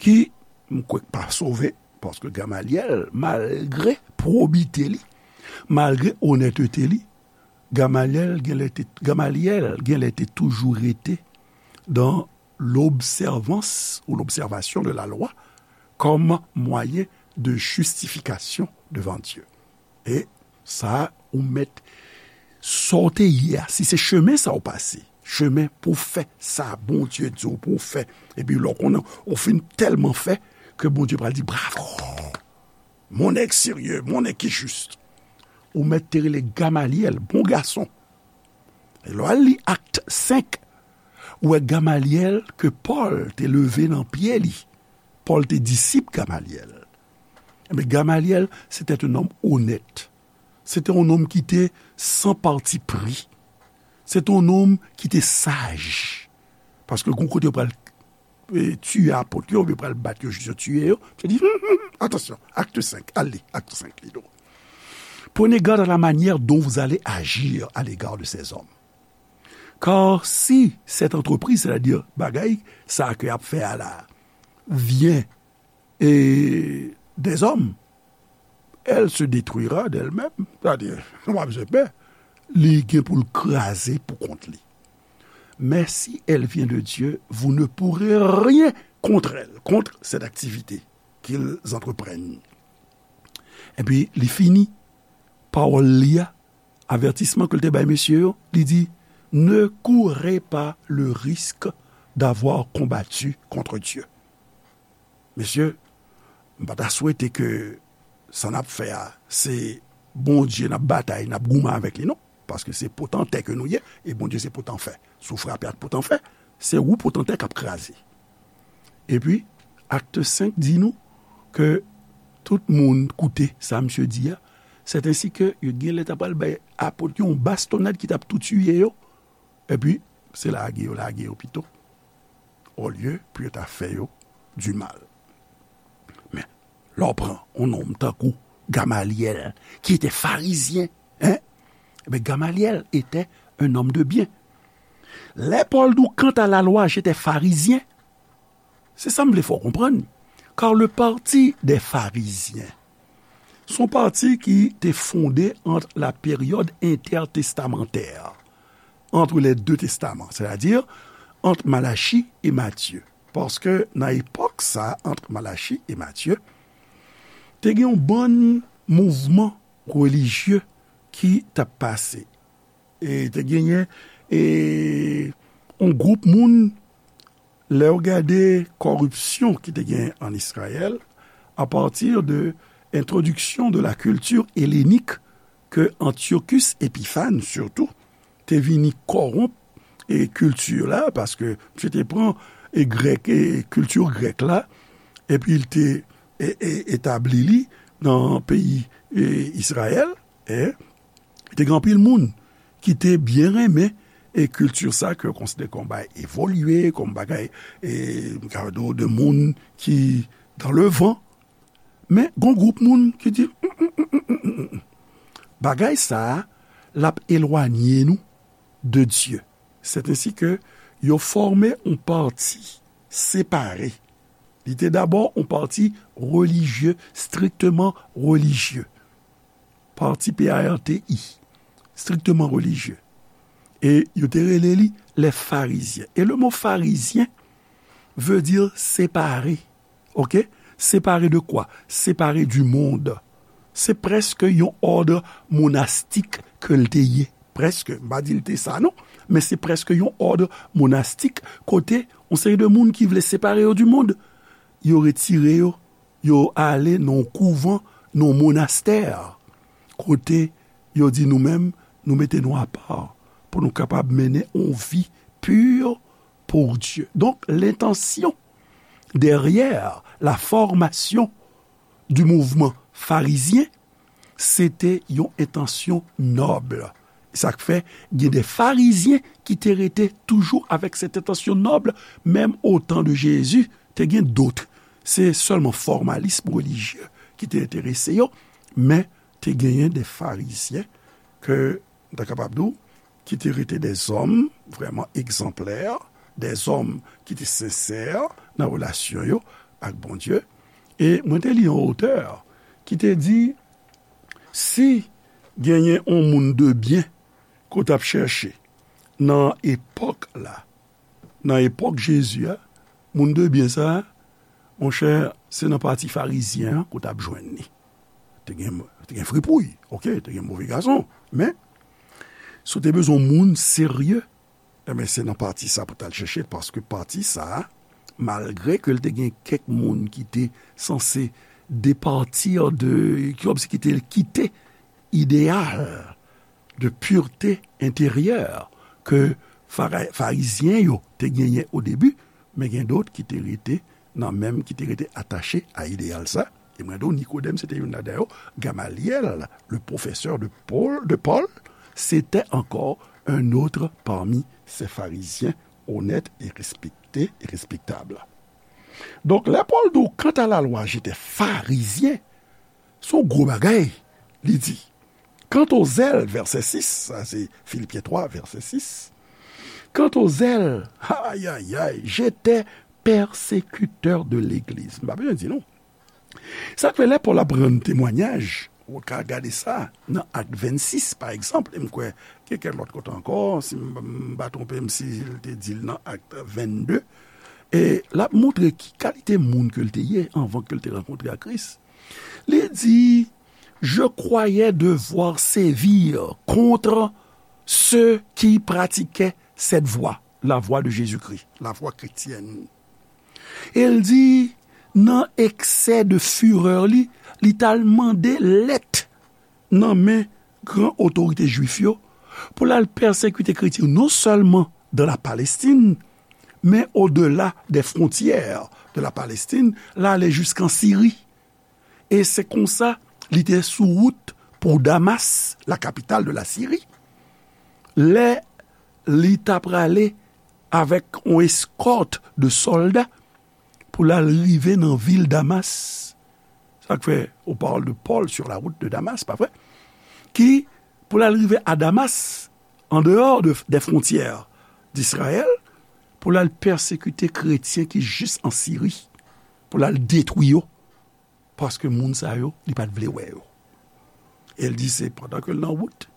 ki, m kwè k pa sove, paske Gamalyèl, malgre pwobite li, malgre onètete li, Gamalyèl genlè te, Gamalyèl genlè te toujou rete dans l'observance ou l'observation de la loi comme moyen de justification devant Dieu. E sa, ou mèt sa w te ye a. Si se chemen sa w pase, chemen pou w fè sa Bondye di w pou w fè, epi lè w konnen ou fin tèlman fè ke Bondye pral di, bravo, mon nèg serye, mon nèg ki jis. Ou mèt te rele Gamalyèl, bon gason. E lè w al li Akt senk, ou wè Gamalyèl ke Pòl te leve nan pye li. Pòl te disip Gamalyèl. Ebyen, Gamalyèl, c'était un homme honnête. C'était un homme qui était sans parti pris. C'était un homme qui était sage. Paske gon kote yo pral e, tiye apot yo, oubyen pral bat yo jis yo tiye yo. Misye di, hmm, hmm, hmm, attention, acte cinq, allez, acte cinq, li di w. Prenez garde à la manière dont vous allez agir à l'égard de ces hommes. Car si cette entreprise, c'est-à-dire bagay sa ke y ap fè a la, vient e, des hommes, elle se détruira d'elle-même. Sètadi, w ap bezwen pè, li gen pou l kraze pou kont li. Mais si elle vient de Dieu, vous ne pourrez rien contre elle, contre cette activité qu'ils entreprennent. Epi, li fini pawòl li a, avètisman ke l te bay mesye yo, li di, ne courez pas le risque d'avoir combattu contre Dieu. Mesye, m pa ta swete ke sa n ap fè a, se Bondye n ap batay, n ap goumen avèk li, non. Paske se potantè ke nou ye, e Bondye se potanfè. Si w frape ak potanfè, se ou potantè k ap kraze. Epi, Akt senk di nou ke tout moun koute sa misye di a, sèt ensi ke yo genlè ta pral bay apot yo yon bastonad ki t ap tou tiye yo, epi se lage yo, lage yo pito, olye pou yo ta fè yo di mal. Men, lè w pran yon nonm tankou Gamalyèl, ki te farizyen, en? Ebyen, Gamalyèl etè un nonm de byen. Lè Pòl di w, quant à la loi, j'étais pharisien, se sa m vle fè w konprann. Car le parti des pharisiens, se yon pati ki te fonde ant la période intertestamentaire, entre les deux testaments, c'est-à-dire entre Malachie et Matthieu. Paske nan epòk sa, ant Malachi e Matye, te gen yon bann mouvman relijye ki t ap pase. E te genyen, e, yon gwoup moun, lè w gade kòripsyon ki te gen ann Izrayèl, à partir de introduction de la culture hellénique que Antiochus Épiphanes, surtout, te vini kòwonp e kilti la, paske misye te pran e grèk, e kilti grèk la, epi l te e, e, etabli li nan peyi e, Izrayèl, e te gen anpil moun ki te byen renmen e kilti sa ke yo konsidere kòm bagay evolye, kòm bagay, e, m ka di w, de moun ki dan le van. Men, gon gwoup moun ki di, "Mm, mm, mm, mm, mm, mm. Bagay sa a, l ap elwanye nou de Dye." Sèt ensi ke yo fòme yon pati separe. Li te dabò yon pati relijye, strikteman relijye. Pati P A R T I, strikteman relijye. E yo te rele li les Pharisiens. E le mo Pharisien veut dire séparé. Ok? Séparé de quoi? Séparé du monde. Se prèske yon òd monastik ke l te ye. Prèske, m pa di l te sa non, men se prèske yon òd monastik kote yon seri de moun ki vle separe yo du monde, yo retire yo, yo ale nan yon kouvan, nan yon monastè, kote yo di nou menm, nou mete nou apa pou nou kapab mennen yon vi pur pour Dieu. Donc, l'intention derrière la formation du mouvement pharisien, se te yon entansyon nòb. Sa k fè gen de farizyen ki te rete toujou avèk cette intention noble, menm au temps de Jésus, te gen dòt. Se sèlman fòmalism relijye ki te enterese yo, men te genyen de farizyen ke, m ta kapab di w, ki te rete de zòm vrèman egzanplè, de zòm ki te sensè nan relasyon yo ak Bondye. E mwen te li yon otè ki te di, si genyen yon moun de byen ke w t ap chèche nan epòk la, nan epòk Jezi a, moun de byen sa a, monchè, se nan pati farizyen an ke w t ap jwenn li. Te gen, te gen fripouy, ok, te gen move gason, men si w te bezwen yon moun serye, enben, se nan pati sa pou w t al chèche l, paske pati sa a, malgre ke l te gen kèk moun ki te sanse depati de, ki kòmsi ki te kite ideyal de pureté intérieure ke Fara-, Farizyen yo te genyen o debi, men gen dòt ki te rete nan menm, ki te rete atache a ideyal sa. E mwen di w, Nikodèm, se te youn ladan yo. Gamalyèl, le professeur de Paul, de Paul, c'était encore un autre parmi ces pharisiens honnêtes et respectés et respectables. Donk, lè Pòl di w, quant à la loi, j'étais pharisien, se yon gwo bagay, li di. Quant au zèle, vèsè sis, sa se Filipyen twa, vèsè sis. Quant au zèle, ay, ay, ay, j'étais persécuteur de l'église. M pa bezwen di non. Sa k fè lè Pòl ap rann temwayaj, ou ka gade sa nan Ak vennsis, pa egzanp, e m kwè gen kèk lòt kote ankò, si m, m pa twonpe m, si l te di l nan Ak vennde, e l ap montre ki kalite moun ke l te ye anvan ke l te rankontre ak Kris. Li di, je croyais devoir sévir contre ceux qui pratiquaient cette voie, la voie de Jésus-Christ, la voie chrétienne. E l di, nan eksè de firè li, li t al mande lèt nan men gran otorite jwif yo pou l al pèsekite kretyen yo, non sèlman dans la Palestine, men au-delà des frontières de la Palestine, l ale jiskan Siri. E se konsa, li te sou wout pou Damas, la capitale de la Syrie. Lè li ta prale avèk yon eskòt de sòlda pou l al rive nan vil Damas. Sa k fè, on parle de Paul sur la route de Damas, pa vre? Ki, pou l al rive a Damas, en dehors de, des frontières d'Israël, pou l al pèsekite kretyen ki jis an Siri, pou l al detwi yo, paske moun sa yo, li pa t vle wè yo. E l di se pandan ke l nan wout,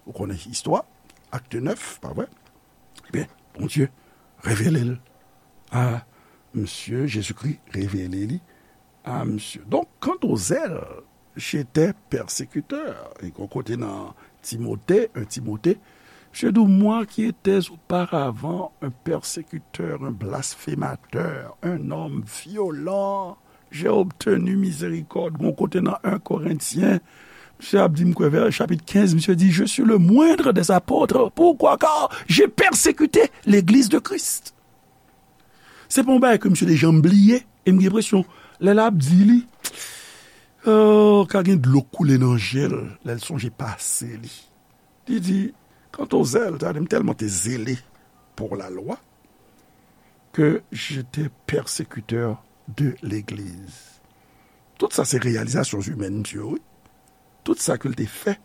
ou konnen istwa, Acte neuf, pa vre? Ebyen, Bondye revele l a misye, Jezikri revele li a misye. Donc, quant au zèle, j'étais persécuteur. E gon kote nan Timote, un Timote, je dis, moi qui étais auparavant un persécuteur, un blasphémateur, un homme violent, j'ai obtenu miséricorde. Gon kote nan un Korentyen, misye ap di, m kwè, vè chapit kenz, misye di, je suis le moindre des apôtres. Pourquoi? Car j'ai persécuté l'église de Christ. Se pa yon bagay ke misye te janm bliye. E m gen enpresyon, lè l ap di li, oh, ka gen dlo k koule nan je l, lè l sonje pase li. Li di, Quant aux zèles, sa vle di m tèlman te zele pour la loi que j'étais persécuteur de l'Église. Tout sa se reyalizasyon imèn misye yo, wi. Tout sa ke l te fè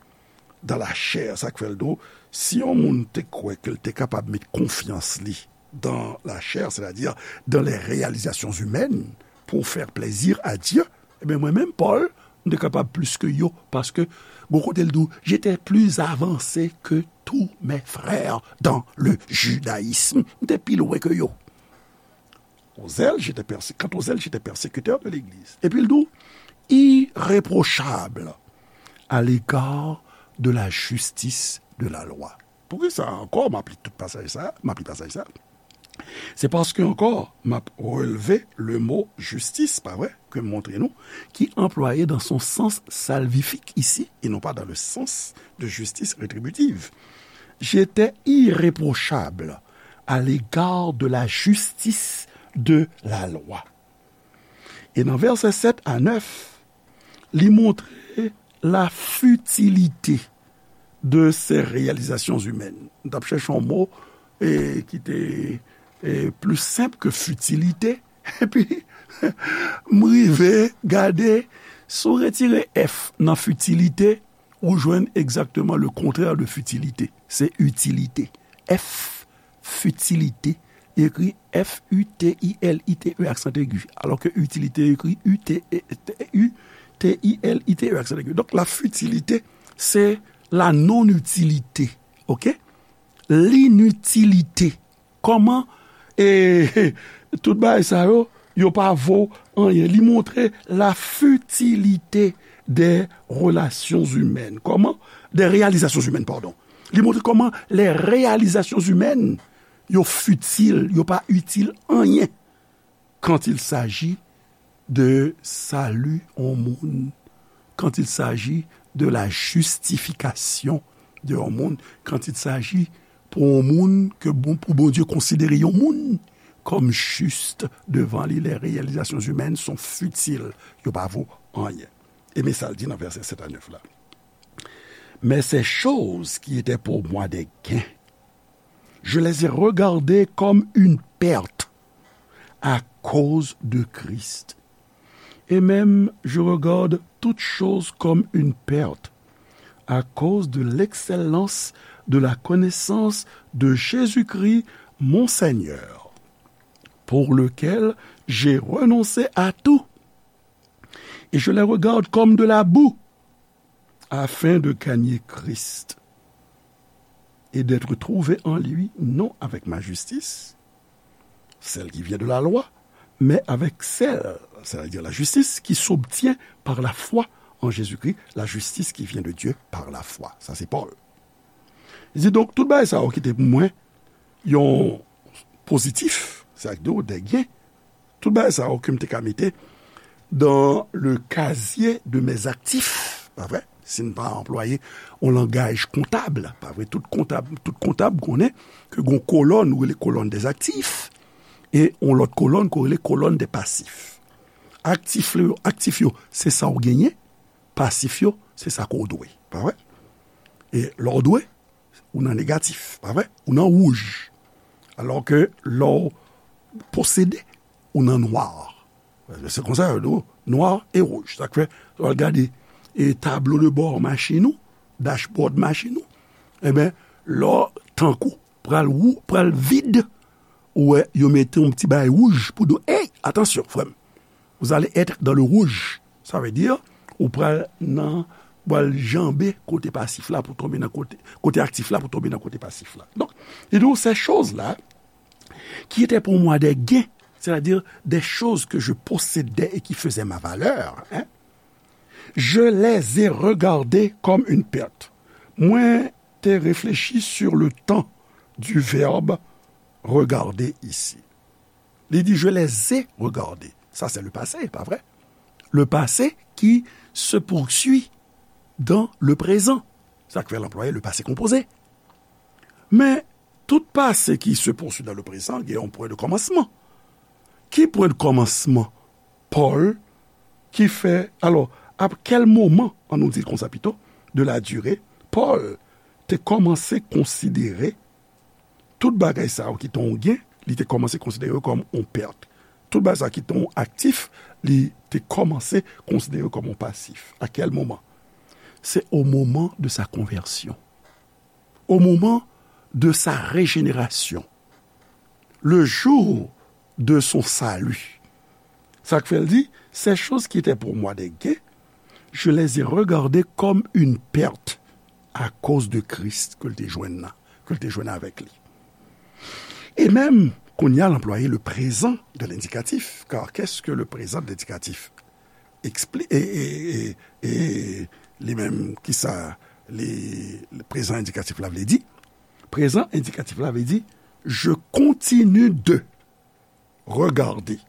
dans la chair, sa k fè l di w, si yon moun te kwè ke l te kapab met konfyans li dans la chair, c'est-à-dire dans les réalisations humaines, pour faire plaisir à Dieu, ebyen, mwen menm, Pòl, m te kapab plis ke yo, paske gon kote l di w, j'étais plus avancé que tous mes frères dans le judaïsme. M te pi lwen ke yo. Aux zèles, j'étais persé-, quant aux zèles, j'étais persécuteur de l'Église. Epi l di w, irréprochable à l'égard de la justice de la loi. Poukisa ankò m ap li tout pasaj sa, m ap li pasaj sa? Se paske ankò, m ap releve le mo justice, pa vre, ke m montre nou, ki anplwaye dans son sens salvifique ici, et non pas dans le sens de justice rétributive. J'étais irréprochable à l'égard de la justice de la loi. E nan vèsè sèt a nèf, li montre la futilité de ces réalisations humaines. M t ap chèche yon mo e, ki te e, plis senp ke fitilite. Epi, m rive gade, si w retire F nan fitilite, ou jwenn egzakteman le contraire de fitilite. Se itilite. F, fitilite, ekri F U T I L I T E, aksan egi. Alò ke itilite ekri U T E, U T I L I T E, aksan egi. Donk, la futilité, c'est la non-utilité. Oke? L'inutilité. Kòman, e, tout bagay sa yo, yo pa vo anyen. Li montre la futilité des relations humaines. Kòman? Des réalisations humaines, pardon. Li montre kòman les réalisations humaines, yo fitil, yo pa itil anyen quand il s'agit de salut yon moun, quand il s'agit de la justification de yon moun, quand il s'agit pou yon moun ke bon, pou Bondye konsidere yon moun kòm jis devan li, les réalisations humaines sont futiles, yo pa vo anyen. E men sa l di nan vèsè sèt a nèf la. Mais ces choses qui étaient pour moi des gains, je les ai regardées comme une perte à cause de Christ. Et même, je regarde toutes choses comme une perte à cause de l'excellence de la connaissance de Jésus-Christ, mon Seigneur, pour lequel j'ai renoncé à tout. Et je les regarde comme de la boue, afin de gagner Christ et d'être trouvé en lui, non avec ma justice, celle qui vient de la loi, mais avec celle, c'est-à-dire la justice, qui s'obtient par la foi en Jésus-Christ, la justice qui vient de Dieu par la foi. Sa se Pòl. Li di, donk, tout bagay sa yo ki te pou mwen yon pozitif, sa k di w, des gains, tout bagay sa yo ke m te ka mete dans le casier de mes actifs, pa vre? Si n pa anplwaye yon langaj kontab, pa vre? Tout kontab, tout kontab konnen ke gon kolòn, ou rele kolòn des actifs, e yon lòt kolòn, ke w rele kolòn des passifs. Aktif yo, aktif yo, se sa w genyen, pasif yo, se sa ke w dwe, pa vre? E lè w dwe, ou nan negatif, pa vre? Ou nan wouj. Alò ke lè w posede, ou nan nwa. Se konsa yo di w, nwa e wouj. Sa k fè, lè w al gade, e tablo de bò machin ou, dashboard machin ou, enben, lè w tankou pral wou, pral vid, ou wè, yo mete yon ti bagay wouj pou di w, ey, atansyon, frè m. Vous allez être dans le rouge. Sa vle di, ou pral nan, pral janbe kote pasif la pou tonbe nan kote, kote aktif la pou tonbe nan kote pasif la. Donk, li di w, ces choses-là, qui étaient pour moi des gains, c'est-à-dire des choses que je possédais et qui faisaient ma valeur, hein, je les ai regardées comme une perte. Mwen te reflechi sur le temps du verbe regarder ici. Li di, je les ai regardées. Ça, c'est le passé, pa vre? Le passé qui se poursuit dans le présent. Sa k fè l anplwaye le passé composé. Men, tout passé qui se poursuit dans le présent, gen yon pwen de kòmansman. Ki pwen de kòmansman Pòl ki fè, alò, à quel moment, an nou di l konsa pito, de la durée, Pòl te kòmanse konsidere tout bagay sa yo ki te yon gen, li te kòmanse konsidere yo kòm yon pèt. Tout bagay sa yo ki te yon aktif, li te kòmanse konsidere yo kòm yon pasif. À quel moment? C'est au moment de sa conversion, au moment de sa régénération, le jour de son salut. Sa k fè l di, ces choses qui étaient pour moi des gains, je les ai regardées comme une perte à cause de Christ ke l te jwenn nan, ke l te jwenn avèk li. E menm, kounye a, l anplwaye le présent de l'indicatif, car qu'est-ce que le présent de l'indicatif expli-, e, e, e, e li menm, kisa li, le prezan endikatif la vle di? Prezan endikatif la vle di, je continue de regarder.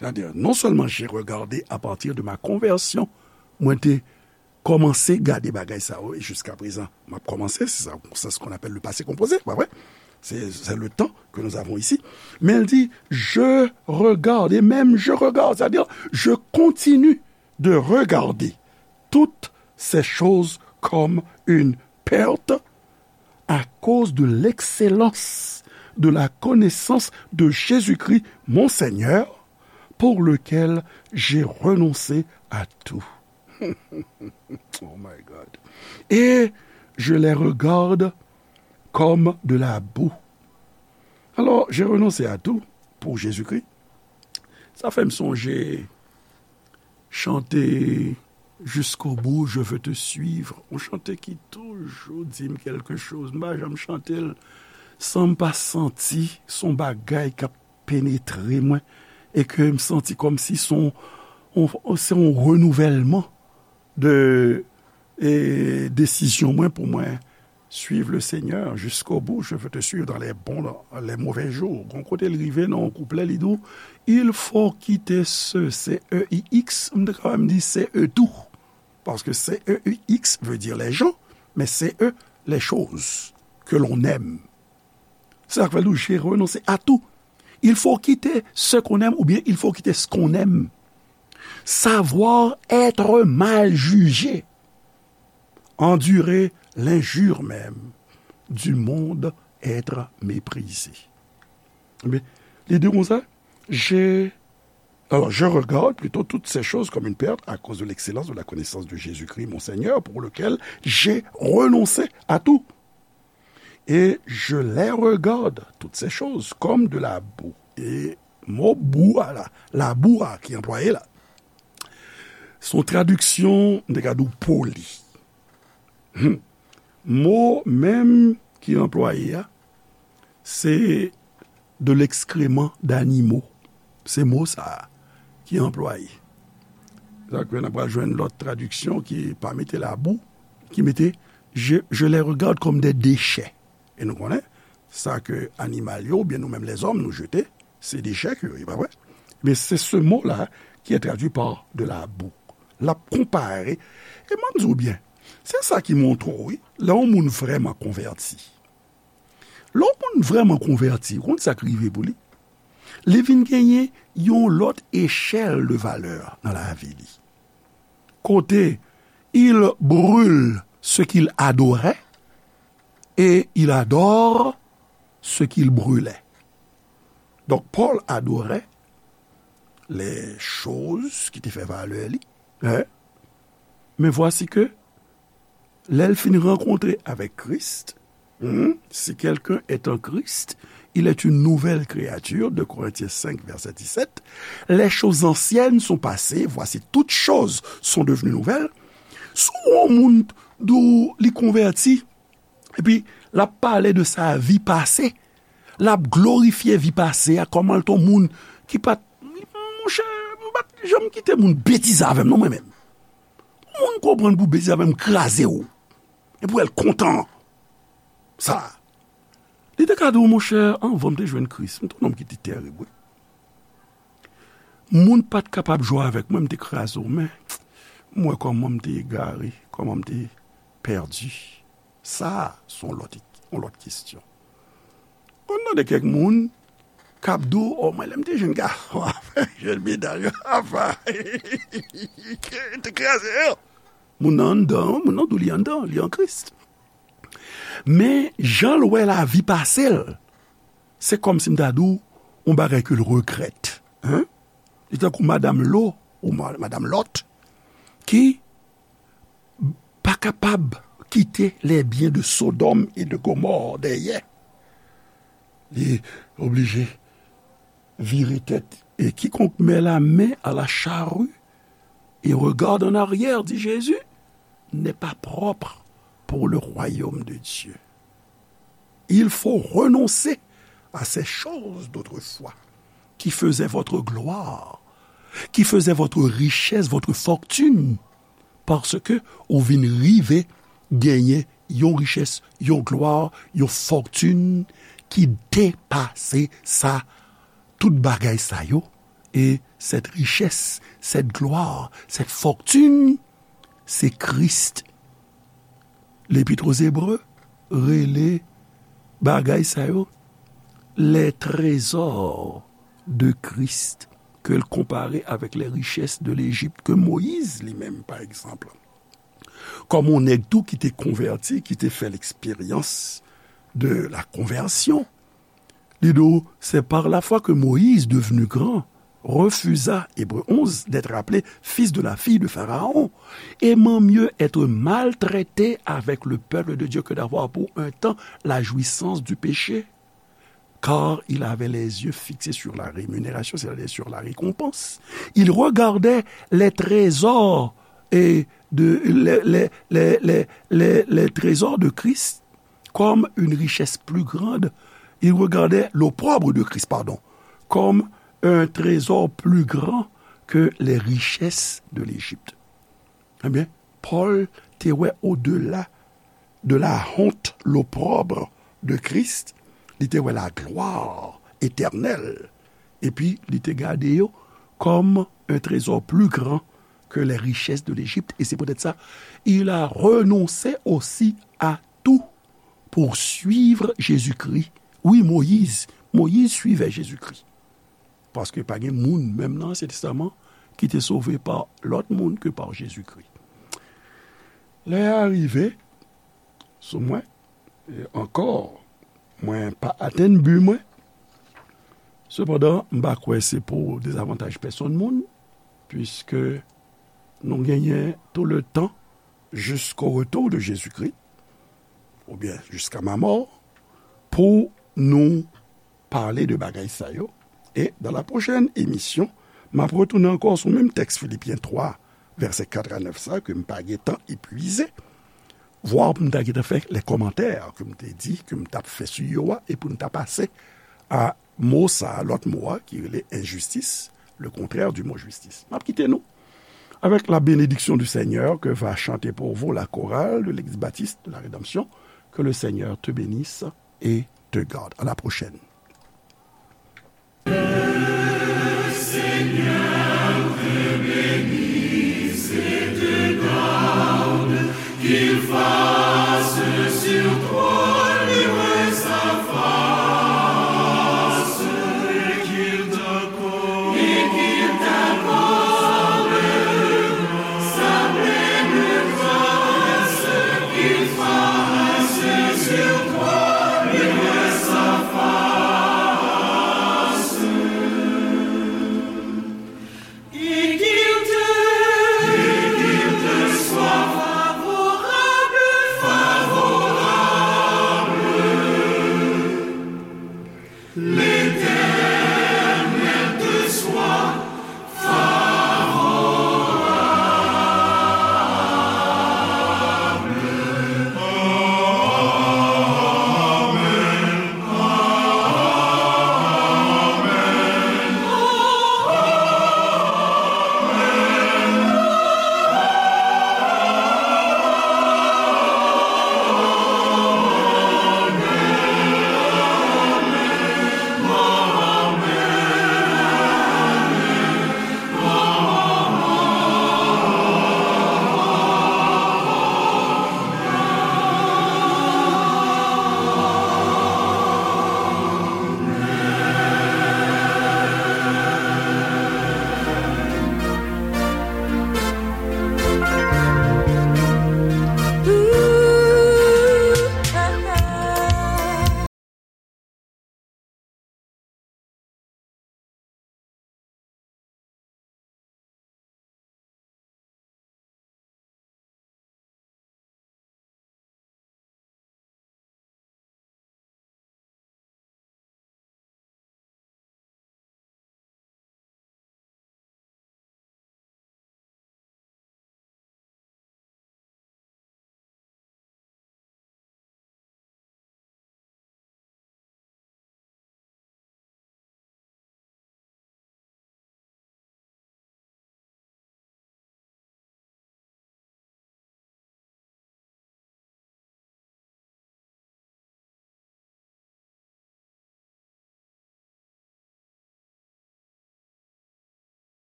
C'est-à-dire, non seulement j'ai regardé à partir de ma conversion, mwen te kòmanse gade bagay sa yo, e jiska prezan, m ap kòmanse, c'est ça, c'est ce qu'on appelle le passé composé, pa vre? C'est, c'est le temps que nous avons ici. Men l di, je regarde, et même je regarde, c'est-à-dire, je continue de regarder toutes ces choses comme une perte à cause de l'excellence de la connaissance de Jésus-Christ, mon Seigneur, pour lequel j'ai renoncé à tout. Oh my God. Et je les regarde comme de la boue. Alors, j'ai renoncé à tout pour Jésus-Christ. Sa fè m sonje chante Jusqu'au bout, je veux te suivre. Yon chante ki toujou di m kèlke choz. M pa janm chante l san m pa santi se yon bagay k ap penetre mwen e ke m santi kòmsi se yon, yon, se yon renouvèlman de, e, desizyon mwen pou mwen suivre le Seigneur jusqu'au bout, je veux te suivre dans les bons, dans les mauvais jours. Gon kote l rive nan yon kouplè, li di w, il faut quitter ce, C E I X, m te kapab di C E tout. Parce que C E I X veut dire les gens, mais C E, les choses que l'on aime. C'est ça que veut dire, j'ai renoncé à tout. Il faut quitter ce qu'on aime ou bien il faut quitter ce qu'on aime. Savoir être mal jugé, endurer l'injure même, du monde être méprisé. Ebyen, li di konsa, j'ai, alors, je regarde plutôt toutes ces choses comme une perte à cause de l'excellence de la connaissance de Jésus-Christ, mon Seigneur, pour lequel j'ai renoncé à tout. Et je les regarde, toutes ces choses, comme de la boue. E mo bou a la, labou a ki anplwaye la, se yon tradiksyon, m te ka di w, poli. Hmm. Mo menm ki anplwaye a, se de l'excrément d'animaux. Se mo sa a ki anplwaye. Sa k fè n ap pral jwenn lòt tradiksyon ki pa mete labou, ki mete, je, je les regarde comme des déchets. E nou konnen, sa ke animal yo, oubyen nou menm lèzòm, nou jete, se dechè ke yo ye, pa vre? Men se se mo la ki est traduit par de la boue. L ap konpare, e m ap di w byen, se sa ki montre w, wi, lè yon moun vrèman konvèti. Lè yon moun vrèman konvèti, ou konn sa k rive pou li? Li vin genyen yon lòt echèl de valè nan lavi li. Kote, il brûle ce qu'il adorait et il adore ce qu'il brûlait. Donk, Pòl adore les choses ki te fè valè li. Hein? Mais voici que, lè l fin rankontre avèk Kris, hmm, si quelqu'un est en Christ, il est une nouvelle créature, deux Corinthiens cinq, verset dix-sept. Les choses anciennes sont passées, voici toutes choses sont devenues nouvelles. Si w wè yon moun di w li konvèti, epi l ap pale de sa vi pase, l ap glorifye vi pase a, kòman l te yon moun ki pa t, monchè, m pa t janm kite moun betize avè m non, mwen menm. Moun konprann pou betize avè m, kraze w. E pou wè l kontan. Sa. Li te ka di w, monchè, anvan m te jwenn Kris, m te yon nonm ki te terib, wi. Moun pa t kapab jwe avèk mwen, m te kraze w, men m wè kòman m te egare, kòman m te pèdi. Sa, se yon lòt, yon lòt kesyon. Konn tande kèk moun k ap di w, o, mwen, lè m te jèn gason, jèn medam yo, apa, te kraze yo. Moun nan anndan, moun nan di w li anndan, li an Kris. Men, jan l wè lavi pase l, se kòmsi m ta di w yon bagay ke l regrèt. Hein? Li tankou madanm Lo, ou ma-, madanm Lòt, ki pa kapab kite les biens de Sodome et de Gomorrhe dèyè. Li oblije vire tèt. Et quiconque met la main à la charrue et regarde en arrière, dit Jésus, n'est pas propre pour le royaume de Dieu. Il faut renoncer à ces choses d'autrefois qui faisaient votre gloire, qui faisaient votre richesse, votre fortune, paske ou vin rive genyen yon richès, yon glwa, yon fòtin ki depase sa, tout bagay sa yo. E cette richesse, cette gloire, cette fortune, se Kris. Lepit Ozebre rele bagay sa yo les trésors de Christ, ke l konpare avèk les richesses de l'Égypte, ke Moyiz li menm, pa egzanp, kòm yon nèg tou ki te konvèti, ki te fè l'expérience de la conversion. Li di w, c'est par la foi que Moïse, devenu grand, refusa, Hébreux onze, d'être appelé fils de la fille de Pharaon, aimant mieux être maltraité avec le peuple de Dieu que d'avoir pour un temps la jouissance du péché. Car il avait les yeux fixés sur la rémunération, c'est-à-dire sur la récompense. Il regardait les trésors et de, les, les, les, les, les, les trésors de Christ comme une richesse plus grande. Il regardait l'opprobre de Christ, pardon, comme un trésor plus grand que les richesses de l'Égypte. Ebyen, Pòl te wè odela de la honte, l'opprobre de Christ, li te wè la gloire éternelle, epi li te gade yo comme un trésor plus grand que les richesses de l'Égypte, et c'est peut-être ça, il a renoncé aussi à tout pour suivre Jésus-Christ. Wi, Moyiz, Moyiz suivait Jésus-Christ. Paske pa gen moun, menm nan Ansyen Testaman, ki te sove pa lòt moun ke pa Jezikri. Lè a rive sou mwen, e ankò, mwen pa atenn bi mwen. Sepandan, m pa kwè se pou dezavantaj pèsonn moun, piske nou genyen tout le temps jusqu'au retour de Jésus-Christ, oubyen jusqu'à ma mort, pou nou pale de bagay sa yo. E dans la prochaine émission, m ap retounen ankò sou menm tèks Filipyen twa, vèsè kat a nèf sa, ke m pa gentan epwize, vwa pou m ta gentan fè lè kòmantè ke m te di, ke m t ap fè sou yo a, e pou n ta pase a mo sa, lòt mo a, ki rele enjistis, le contraire du mot justice. M ap kite nou avec la bénédiction du Seigneur que va chanter pour vous la chorale de l'Église baptiste de la Rédemption. Que le Seigneur te bénisse et te garde. À la prochaine.